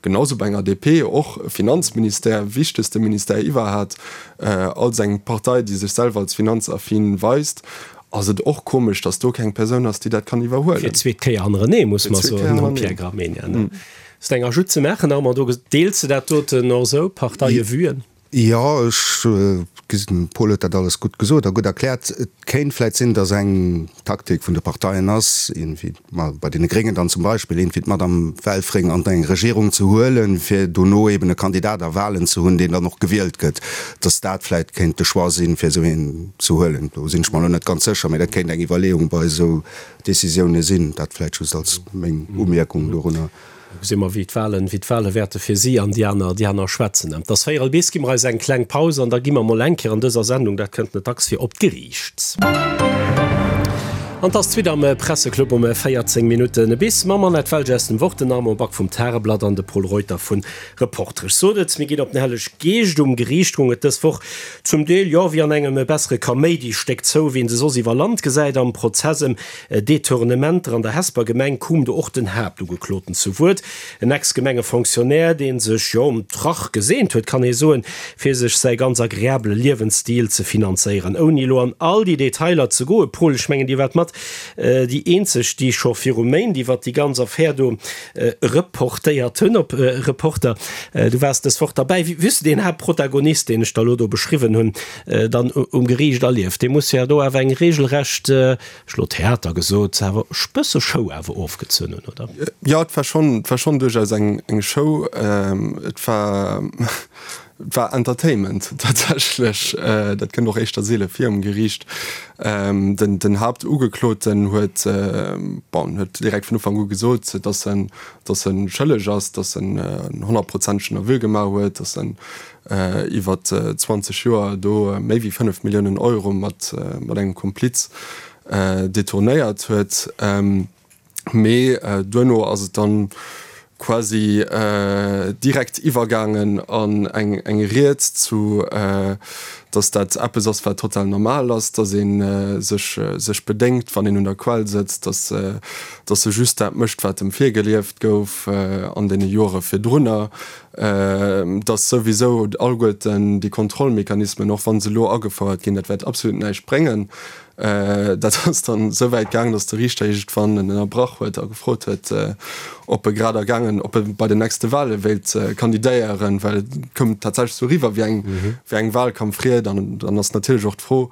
genau sou bei enger DP, och Finanzministère, wichtegste Ministère iwwerhat, als eng Partei, déi sech selwer als finanzaffin weist, ass et och komesch, datt do keng Persoun ass, déi dat kann iwwerhuelen. Fir d'zweet Kéier hannerenee, muss mer soen, nom Pierre Gramegna. Ass eng Ajout ze maachen, Armand? Do deels de dat doten och esou, Parteie vuen? Jo, ech gesinn, de Paul huet dat alles gutt gesot a gutt erkläert. Et kéint vläicht sinn, datt eng Taktik vun de Parteien ass, iergendwéi, ma bei deene Gréngen dann zum Beispill, iergendwéi d'Madame Welfring an eng Regierung ze huelen, fir dono eben e Kandidat a Wahlen ze hunn, deen dann och gewielt gëtt. Datt dat vläicht kéint de Choix sinn, fir esou een ze huelen. Do sinn ech mer elo net ganz sécher, mä dat kéint eng Iwwerleeung bei esou Décisioune sinn. Dat vläicht just als meng Umierkung dorunner. Da gesi mer, wéi d'Wahlen, wéi d'Wahle wäerte fir si an déi aner, déi aner schwätzen. Et ass véierel bis, gi mer eis eng kleng Paus an da gi mer mol eng Kéier an dëser Sendung, dat kënnt net dacks vir, op d'Geriicht. An et ass d'Suite am Presseclub um 14 Minutten bis mam Annette Welge aus dem Wort, den Armand Back vum Tageblatt an de Pol Reuter vun Reporter. Ech sot et, mir ginn op den Helleg Geescht. Um Geriicht goung et dës Woch zum Deel, jo, wéi an engem bessere Kaméidistéck zou, wéi een se soss iwwer Land gesäit. Am Prozess ëm Detournementer an der Hesper Gemeng koum do och den Haaptugekloten zu Wuert, en Ex-Gemengefonctionnaire, dee sech, jo, um Trach geseent huet, kann ee soen, fir sech säi ganz agreabele Liewensstil ze finanzéieren. Ouni elo an all déi Detailer ze goen, Paul, ech mengen, Dir waart mat déi eenzeg, déi scho viru Méint iwwert déi ganz Affär do reportéiert hunn op Reporter. Du waars dës Woch derbäi. Wéi hues de deen Haaptprotagonist, deen ech der elo do beschriwwen hunn, dann um Geriicht erlieft? Dee muss jo do awer eng regelrecht, ech elo Theater gesot, awer bësse Show awer ofgezunn hunn, oder? Jo, et war schonn, et war schonn duerchaus eng, eng Show. Et war, et war Entertainment tatsächlech. Dat kënnt och éischter seele vir um Geriicht. Den, den Haaptugekloten huet, bon, huet direkt vun Ufank u gesot, datt en, datt e schëlleg ass, datt en en honnertprozentegen Aveu gemaach huet, datt en iwwer 20 Joer do méi wéi 5 Milliounen Euro mat engem Kompliz detournéiert huet. Mee duerno ass et dann quasi direkt iwwergaangen an eng Ried zu, dass dat eppes ass, wat total normal ass, dass ee sech bedéngt, wann een un der Quell sëtzt, dass e just dat mécht, wat em virgelieft gouf an deene Jore virdrunner. Dass souwisou alleguerten déi Kontrollmechanismen, och wa se elo agefouert ginn, dat wäert absolut näischt bréngen. Dat ass dann esou wäit gaangen, dass de Riichter iergendwann en ënnerbrach huet a gefrot huet, ob e grad ergaangen, ob e bei den nächste Wale wéilt kandidéieren, well et koum tatsächlech esou eriwwer wéi eng, wéi eng Wahlkampfried. An dann ass natierlech och d'Fro.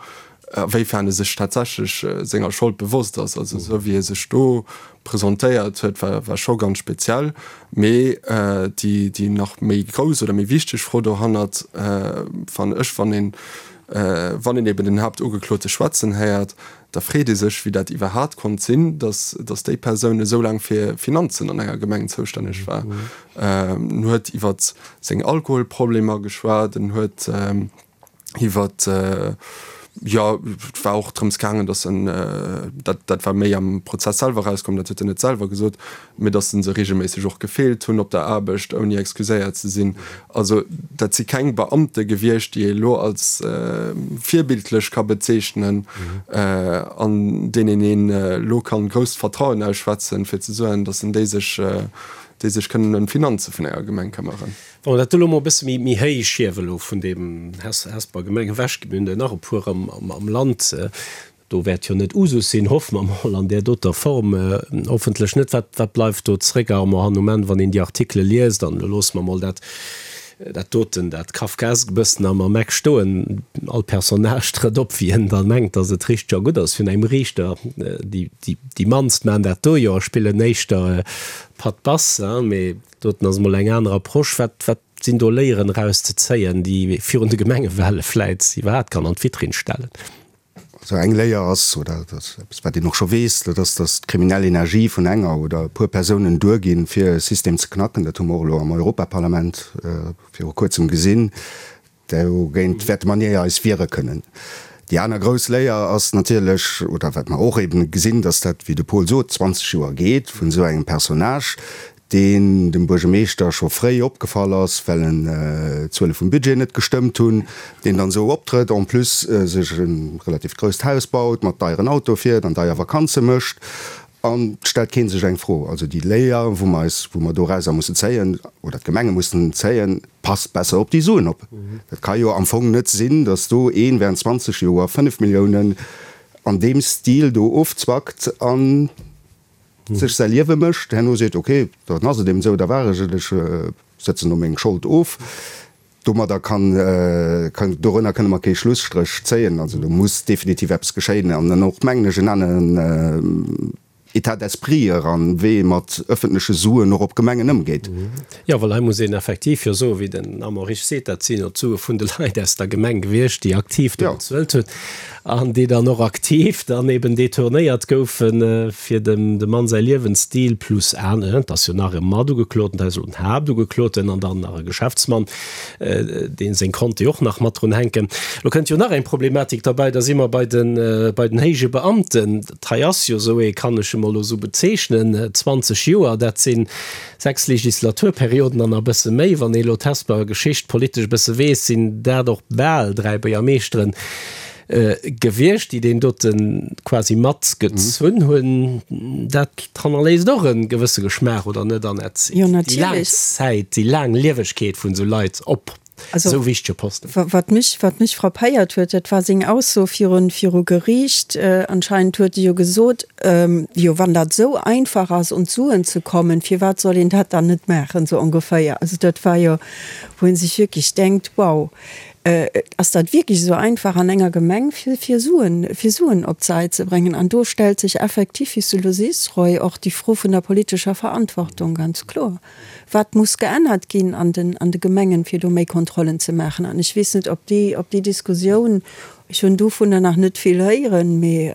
A wéifern e sech tatsächlech senger Schold bewosst ass. Also esou wéi e sech do presentéiert huet, war war scho ganz speziell. Mee déi déi nach méi grouss oder méi wichteg Fro dohannert fannen ech, wann een wann een eben den Haaptugeklote schwätzen héiert, da freet ee sech, wéi dat iwwerhaat konnt sinn, datt datt déi Persoun esou laang fir Finanzen an enger Gemeng zoustänneg war. En huet iwwer seng Alkoholproblemer geschwat, en huet Iwwer, jo, et war och drëms gaangen, datt en, dat, dat war méi am Prozess selwer erauskomm, dat huet en net selwer gesot, mee datt en se reegelméisseg och gefeelt hunn op der Aarbecht, ouni excuséiert ze sinn. Also dat si keng Beamte gewiescht, déi ee elo als virbildlech ka bezeechnen, an deenen een elo kann grousst Vertrauen ausschwätzen, fir ze soen, datt en déi sech, déi sech kënnen ëm d'Finanze vun enger Gemeng këmmeren. Wa mer dat elo mol e bësse méi méi héich hiewen, elo vun deem Hesper Gemeng ewech, mir hunn der nach e puer am am Land, do wäert jo net Usus sinn, hoffe mer mol, an där doter Form hoffentlech net. Wat wat bleift do zréck, Armand, han um Enn, wann een déi Artikele liest? An elo loosse mer mol dat dat doten, dat Kafkaesk e bëssen am am Eck stoen. All Personnage trëtt op, wéi en da mengt, datt et richteg a gutt ass vun engem Riichter. Déi déi déi mannst maachen dat do jo a spillen éischter Patt Bass, mee Doten ass emol eng aner Approche. Wat, wat sinn do Léieren erauszezéien, déi ee virun de Gemengewale vläit iwwerhaapt kann an d'Vitrinn stellen? Also eng Léier ass, oder dat ass eppes, wat een och scho weess, dat ass, datt d'kriminell Energie vun enger oder e puer Persounen duerginn, fir e System ze knacken. Dat hu mer och elo am Europaparlament viru Kuerzem gesinn. Dogéint wäerte mer ni eis wiere kënnen. Déi aner grouss Léier ass natierlech, oder wat mer och eben gesinn, dass dat, wéi de Paul sot, 20 Joer geet vun esou engem Personnage, deen dem Buergermeeschter scho fréi opgefall ass, well en d'Zuele vum Budget net gestëmmt hunn, deen dann esou optrëtt, en plus sech e relativt grousst Haus baut, mat deieren Autoe fiert an deier Vakanze mécht. An et stellt kee sech eng Fro. Also déi Léier, wou mer eis, wou mer dorauser mussen zéien, oder d'Gemenge mussen zéien, Passt besser op déi Suen op. Dat ka jo am Fong net sinn, datt do een während 20 Joer 5 Milliounen an deem Stil do ofzwackt a sech säi Liewe mécht, herno seet, ok, dann ass et eben esou, da war ech et, ech sëtzen do meng Schold of. Domadder kann, dorënner kënne mer kee Schlusstréch zéien. Also do muss definitiv eppes geschéien an dann och, mengen ech, en aneren État d'esprit eran, wéi ee mat ëffentleche Suen och op Gemengen ëmgeet. Jo, well hei muss een effektiv jo soen, wéi den Armand Risch seet, dat sinn jo d'Sue vun de Leit aus der Gemeng gewiescht, déi aktiv do bezuelt hunn an déi dann och aktiv dann eben detournéiert goufen, fir dem Mann säi Liewensstil plus aner, et ass jo nach e Matugekloten, dat ass elo den Haaptugekloten an dann nach e Geschäftsmann, dee seng Konte och nach mat drun hänken. Elo kënnt jo nach eng Problematik derbäi, da si mer bei den, bei den héije Beamten. Dat hei ass jo esou ee, kann ech emol elo esou bezeechnen, 20 Joer, dat si 6 Legislaturperioden an e bësse méi. Wann ee elo d'Hesper Geschicht politesch e bësse weess, sinn dat och bal 3 Buergermeeschteren gewiescht, déi deen dote quasi matgezunn hunn. Dat hannerléisst och e gewësse Geschmaach, oder net, Annette? Jo, natierlech. Déi laang Zäit, déi laang Liewegkeet vun esou Leit op esou wichtege Posten. Wat mech, wat mech frappéiert huet, dat war seng Ausso virun, viru Geriicht. Anscheinend huet e jo gesot, jo wann dat esou einfach ass un d'Suen ze kommen, firwat soll een dat dann net maachen, sou ongeféier. Also dat war jo, wou ee sech wierklech denkt, wow, ass dat wierklech esou einfach an enger Gemeng fir, fir Suen, fir Suen op d'Säit ze bréngen? An do stellt sech effektiv, wéi s du elo sees, Roy, och déi Fro vun der politescher Verantwortung ganz kloer. Wat muss geännert ginn an den, an de Gemengen, fir do méi Kontrollen ze maachen? An ech weess net, ob déi, ob déi Diskussioun, ech hunn dovunner nach net vill héieren, mee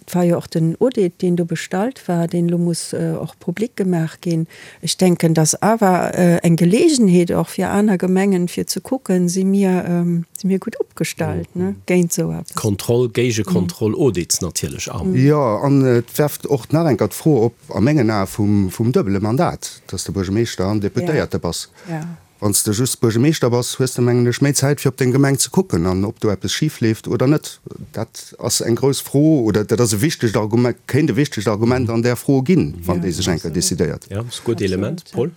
et war jo och den Audit, deen do bestallt war, deen elo muss och public gemaach ginn. Ech denken, dass awer eng Gelegenheet och fir aner Gemengen, fir ze kucken, si mir, si mir gutt opgestallt, ne, géint esou eppes. Kontroll, Géigekontroll, Audits natierlech an. Jo, an et werft och nach eng Kéier d'Fro op, a mengen Ae vum duebele Mandat, dass de Buergermeeschter an Deputéierte bass. Wann s de just Buergermeeschter bass, hues de, mengen ech, méi Zäit fir op deng Gemeng ze kucken an ob do eppes schif leeft oder net. Dat ass eng grouss Fro oder dat ass e wichtegt Argument, kéint e wichtegt Argument an där Fro ginn, wann déi sech eng Kéier decidéiert. Jo, ass e gutt Element, Paul.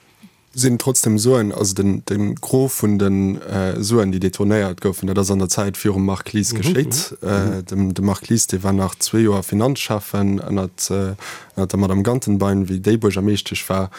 Sinn trotzdem Suen, also den de Gros vun de Suen, déi detournéiert goufen, dat ass an der Zäit virum Marc Lies geschéit. Dem de Marc Lies, dee war nach zwee Joer Finanzschäffen ënnert ënnert der Madame Gantenbein, wéi déi Buergermeeschtesch war,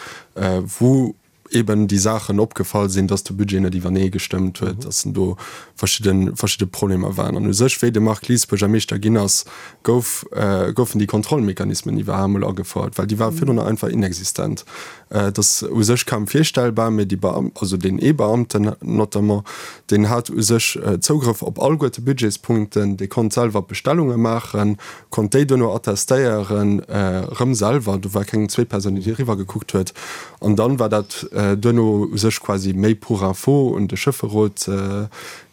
wou. Eben déi Saachen opgefall sinn, dass de Budget net iwwernee gestëmmt huet, dass do verschidde verschidde Problemer waren. An u sech, wéi de Marc Lies Buergermeeschter ginn ass, gouf goufen déi Kontrollmechanismen iwwerhaapt emol agefouert, well déi ware virdrun einfach inexistent. Et ass u sech kaum virstellbar, mee déi Beam, also deen ee Beamten notamment, deen hat u sech Zougrëff op alleguerte Budgetspunkten, dee konnt selwer Bestellunge maachen, konnt déi duerno attestéieren, erëm selwer, do war keng zweet Persoun, déi eriwwer gekuckt huet. An dann war dat duerno u sech quasi méi pour info un de Schëfferot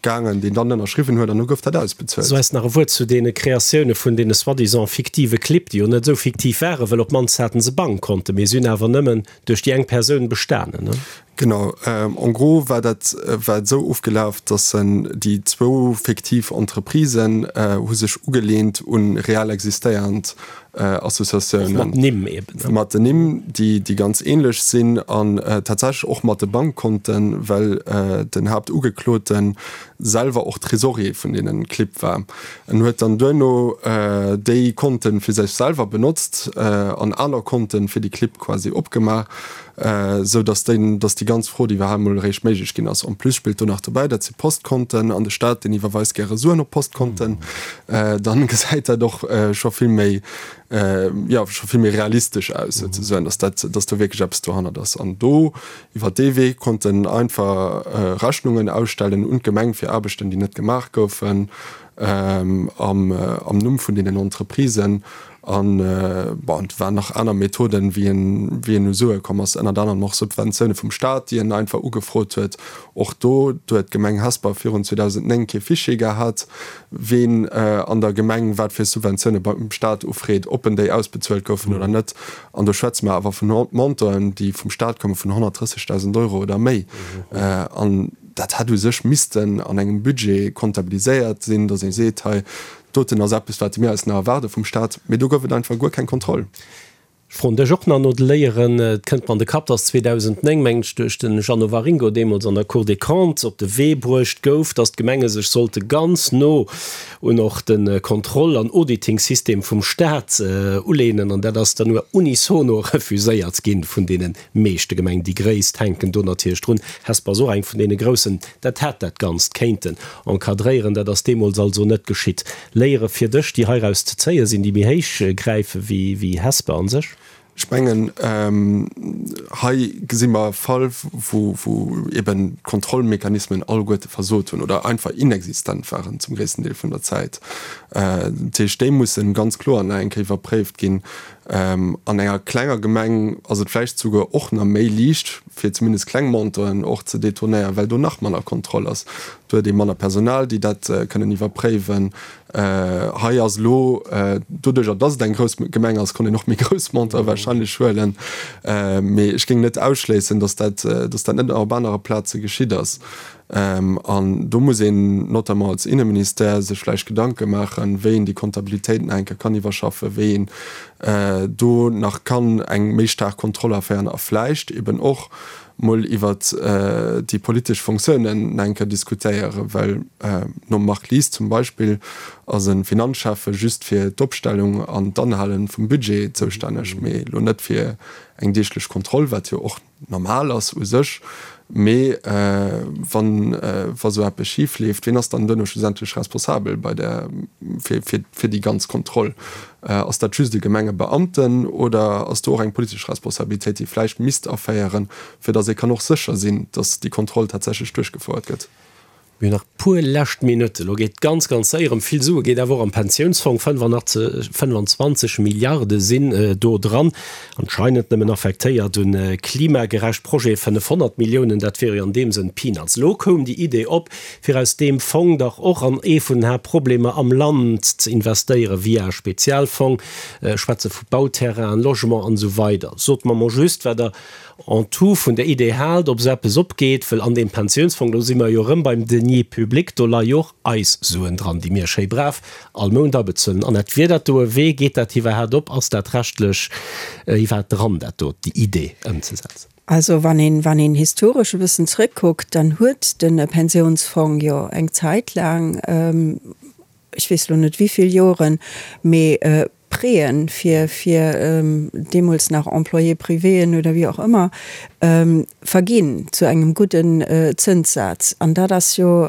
gaangen, deen dann ënnerschriwwen huet, an du gouf dat ausbezuelt. Sou eis nach e Wuert zu deene Kreatioune vun deene soi-disant fiktive Clibb, déi jo net esou fiktiv waren, well op d'mannst haten se Bankkonten, mee si hunn awer nëmmen duerch déi eng Persoun bestanen, ne? Genau, en gros war dat war et esou ofgelaf, datt en déi zwou fiktiv Entreprisen hu sech ugeleent un real existéiernd Associatiounen. Och mat Nimm eben, ne? Mat den Nimm, déi déi ganz ähnlech sinn an tatsächlech och mat de Bankkonten, well den Haaptugeklote selwer och Trésorier vun deenen Clibb war. En huet dann duerno déi Konten fir sech selwer benotzt an aner Konten fir déi Clibb quasi opgemaach. Esou dass déi, dass déi ganz Frod iwwerhaapt emol eréischt méiglech ginn ass. En plus spillt do nach dobäi, dat si Postkonten an de Staat, deen iwwerweist gäre Suen op Postkonten. Dann gesäit dat och scho vill méi, jo, scho vill méi realistesch aus souzesoen, dass dat, dass do wierklech eppes dohannert ass. An do, iwwer dee Wee konnt en einfach Rechnungen ausstellen un d'Gemeng fir Aarbechten, déi net gemaach goufen, am, am Numm vun deenen Entreprisen. An, bon, et waren nach aner Methoden, wéi en, wéi en u Sue komm ass, ënnert anerem och Subventioune vum Staat, déi en einfach ugefrot huet. Och do, do huet d'Gemeng Hesper virun 2009 kee Fichier gehat, ween an der Gemeng wat fir Subventioune beim Staat ufreet, ob en déi ausbezuelt goufen oder net. An do schwätze mer awer vun Montanten, déi vum Staat komme vun 130.000 Euro oder méi. An dat hätt u sech missten an engem Budget comptabiliséiert sinn, datt ee seet, hei, Doten ass eppes, wat mir eis nach erwaarde vum Staat, mee do gouf et einfach guer keng Kontroll. Ech froen dech och nach no de Léieren. Et kënnt mer an de Kapp, dass 2009, mengen ech, duerch de Jeannot Waringo deemools an der Cour des Comptes op de Wee bruecht gouf, dass d'Gemenge sech sollte ganz no un och de Kontroll an Auditingsystem vum Staat uleenen. An dat ass dann nur unisono refuséiert gi vun deene meeschte Gemengen. Déi gréisst hänken do natierlech drun. Hesper ass och eng vun deene groussen. Dat hätt dat Ganzt kéinten encadréieren. Dat ass deemools also net geschitt. Léiere fir dech, déi heiraus ze zéie sinn, déi méi héich gräife wéi Hesper a sech? Ech mengen, hei gesi mer e Fall, wou eben d'Kontrollmechanismen alleguerte versot hunn oder einfach inexistent waren zum gréissten Deel vun der Zäit. Dat heescht, déi mussen ganz kloer nach eng Kéier iwwerpréift ginn. An enger klenger Gemeng ass et vläicht souguer och nach méi liicht, fir zumindest kleng Montanten och ze detournéieren, well do nach manner Kontroll ass. Do huet ee manner Personal, déi dat kënnen iwwerpréiwen. Hei ass elo, doduerjer datt et eng grouss Gemeng ass, konnt een och méi grouss Montanten wahrscheinlech huelen. Mee ech géing net ausschléissen, datt dat, datt dat net och op anere Plaze geschitt ass. An do muss een notamment als Inneministère sech vläicht Gedanke maachen, wéi een déi Kontabilitéit nach eng Kéier kann iwwerschaffen, wéi een do nach kann eng méi staark Kontroll aféieren a vläicht eben och mol iwwert déi politesch Fonctiounen nach eng Kéier diskutéieren, well nom Marc Lies zum Beispill ass e Finanzschäffe just fir d'Opstellung an d'Anhale vum Budget zoustänneg, mee elo net fir eng deeglech Kontroll, wat jo och normal ass u sech, mee wann wa sou eppes schif leeft, ween ass dann duerno schlussendlech responsabel bei der fir fir fir déi ganz Kontroll? Ass dat just e Gemengebeamten oder ass do och eng politesch Responsabilitéit, déi vläicht misst aféieren, fir datt ee kann och sécher sinn, datt déi Kontroll tatsächlech duerchgefouert gëtt? Mir hunn nach e puer lescht Minutten. Elo geet ganz, ganz séier ëm vill Sue geet awer och am Pensiounsfong. 25 Milliarde sinn do dran, anscheinend nëmmen affektéiert un klimagerecht Projete 500 Milliounen, dat wiere jo an deem Sënn Peanuts. Elo koum déi Idee op, fir aus deem Fong dach och an ee vun den Haaptproblemer am Land ze investéieren, via e Spezialfong. Ech schwätze vu Bauterrainen, Logement an esou weider. Sot mer mol just, wat Der en tout vun der Idee haalt, ob esou eppes opgeet, wëll an deem Pensiounsfong, do si mer jo erëm beim Deniers publics, do leie jo och eis Suen dran, déi mir schéi brav all Mount abezuelen. Annette, wier dat do e Wee? Geet dat iwwerhaat op? Ass dat rechtlech iwwerhaat dran, dat do, déi Idee ëmzesetzen? Also wann een, wann een historesch e bëssen zrëckkuckt, dann huet de Pensiounsfong jo eng Zäit laang, ech weess elo net wéivill Joren, mee Préen fir, fir deemools nach Employés privéen oder wéi och ëmmer. Verginn zu engem gudden Zënssaz. An dat ass jo,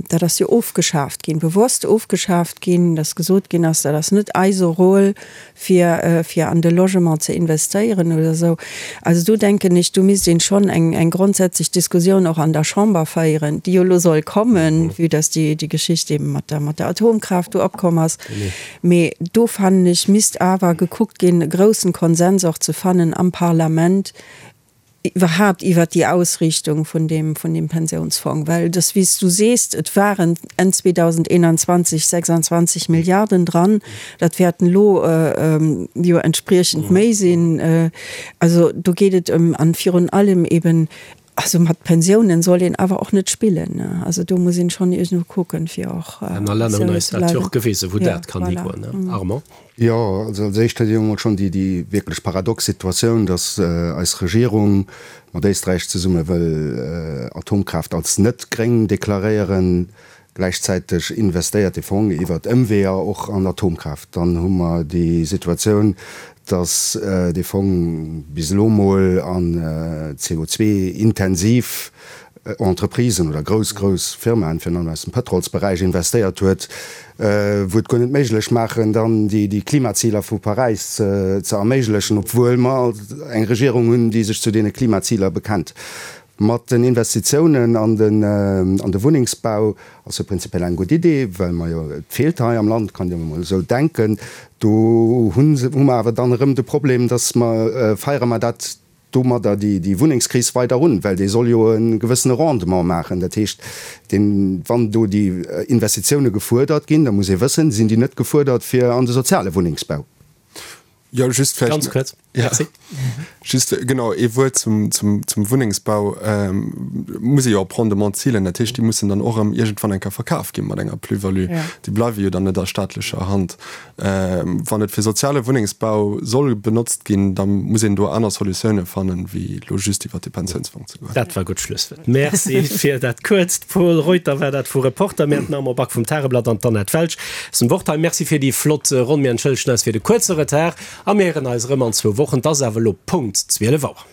dat ass jo ofgeschaaft ginn, bewosst ofgeschaaft ginn, dass gesot ginn ass, dat ass net eise Rôle, fir, fir an de Logement ze investéieren oder esou. Also do denken ech, do misst een schonn eng, eng grondsätzlech Diskussioun och an der Chamber féieren, déi jo elo soll kommen, vue dass déi, déi Geschicht eben mat der, mat der Atomkraaft do opkomm ass. Mee do fannen ech, misst awer gekuckt ginn, e groussen Konsens och ze fannen am Parlament iwwerhaapt iwwert déi Ausriichtung vun deem, vun deem Pensiounsfong. Well et ass, wéi s du sees, et waren Enn 2021 26 Milliarden dran, dat wäerten elo jo entspriechend méi sinn. Also do geet et ëm, an virun allem eben, Also mat Pensiounen soll een awer och net spillen. Also do muss een schonn iergendwou kucken, fir och Aner Länner hunn eis dat jo och gewisen, wou dat kann higoen, Armand. Jo, also als éischt huet een emol schonn déi déi wierklech paradox Situatioun, datt eis Regierung mat Éisträich zesumme wëll Atomkraaft als net gréng deklaréieren, Gläichzäiteg investéiert de Fong iwwert Ëmweeër och an Atomkraaft. Dann hu mer déi Situatioun, datt dee Fong bis elo mol an CO2-intensiv Entreprisen oder grouss, grouss Firmaen, virun allem aus dem Pëtrolsberäich, investéiert huet, wou et guer net méiglech maachen, dann déi Klimaziler vu Paräis ze erméiglechen, obwuel mer eng Regierung hunn, déi sech zu deene Klimaziler bekennt. Mat den Investitiounen an den an de Wunnengsbau ass jo prinzipiell eng gutt Idee, well mer jo, et feelt hei am Land, kann een jo emol esou denken. Do hu hu mer awer dann erëm de Problem, dass mer, feiere mer dat domadder déi déi Wunnengskris weider un, well dee soll jo e gewëssene Rendement maachen. Dat heescht, deen, wann do déi Investitioune gefuerdert ginn, da muss ee wëssen, sinn déi net gefuerdert fir an de soziale Wunnengsbau? Jo, just vläicht. Ganz kuerz. Ja. Merci. Just, genau, ee Wuert zum, zum, zum Wunnengsbau. Ähm, muss ee jo op Rendement zilen. Dat heescht, déi mussen dann och erëm iergendwann eng Kéier verkaf gi mat enger Plus-value. Ja. Déi bleiwe jo dann net a staatlecher Hand. Ähm, wann et fir soziale Wunnengsbau soll benotzt ginn, da muss een do aner Solutioune fannen, wéi elo just iwwert de Pensiounsfong ze goen. Dat war gutt Schlusswuert. Merci fir dat kuerzt. Pol Reuter war dat vu Reporter. Mir haten den Armand Back vum Tageblatt an d'Annette Welsch. Zum Wort hei. Merci fir déi flott Ronn. Mir entschëllegen eis fir de kuerze Retard a mir héieren eis erëm an zwou Wochen. Et ass awer elo Punkt 12 Auer.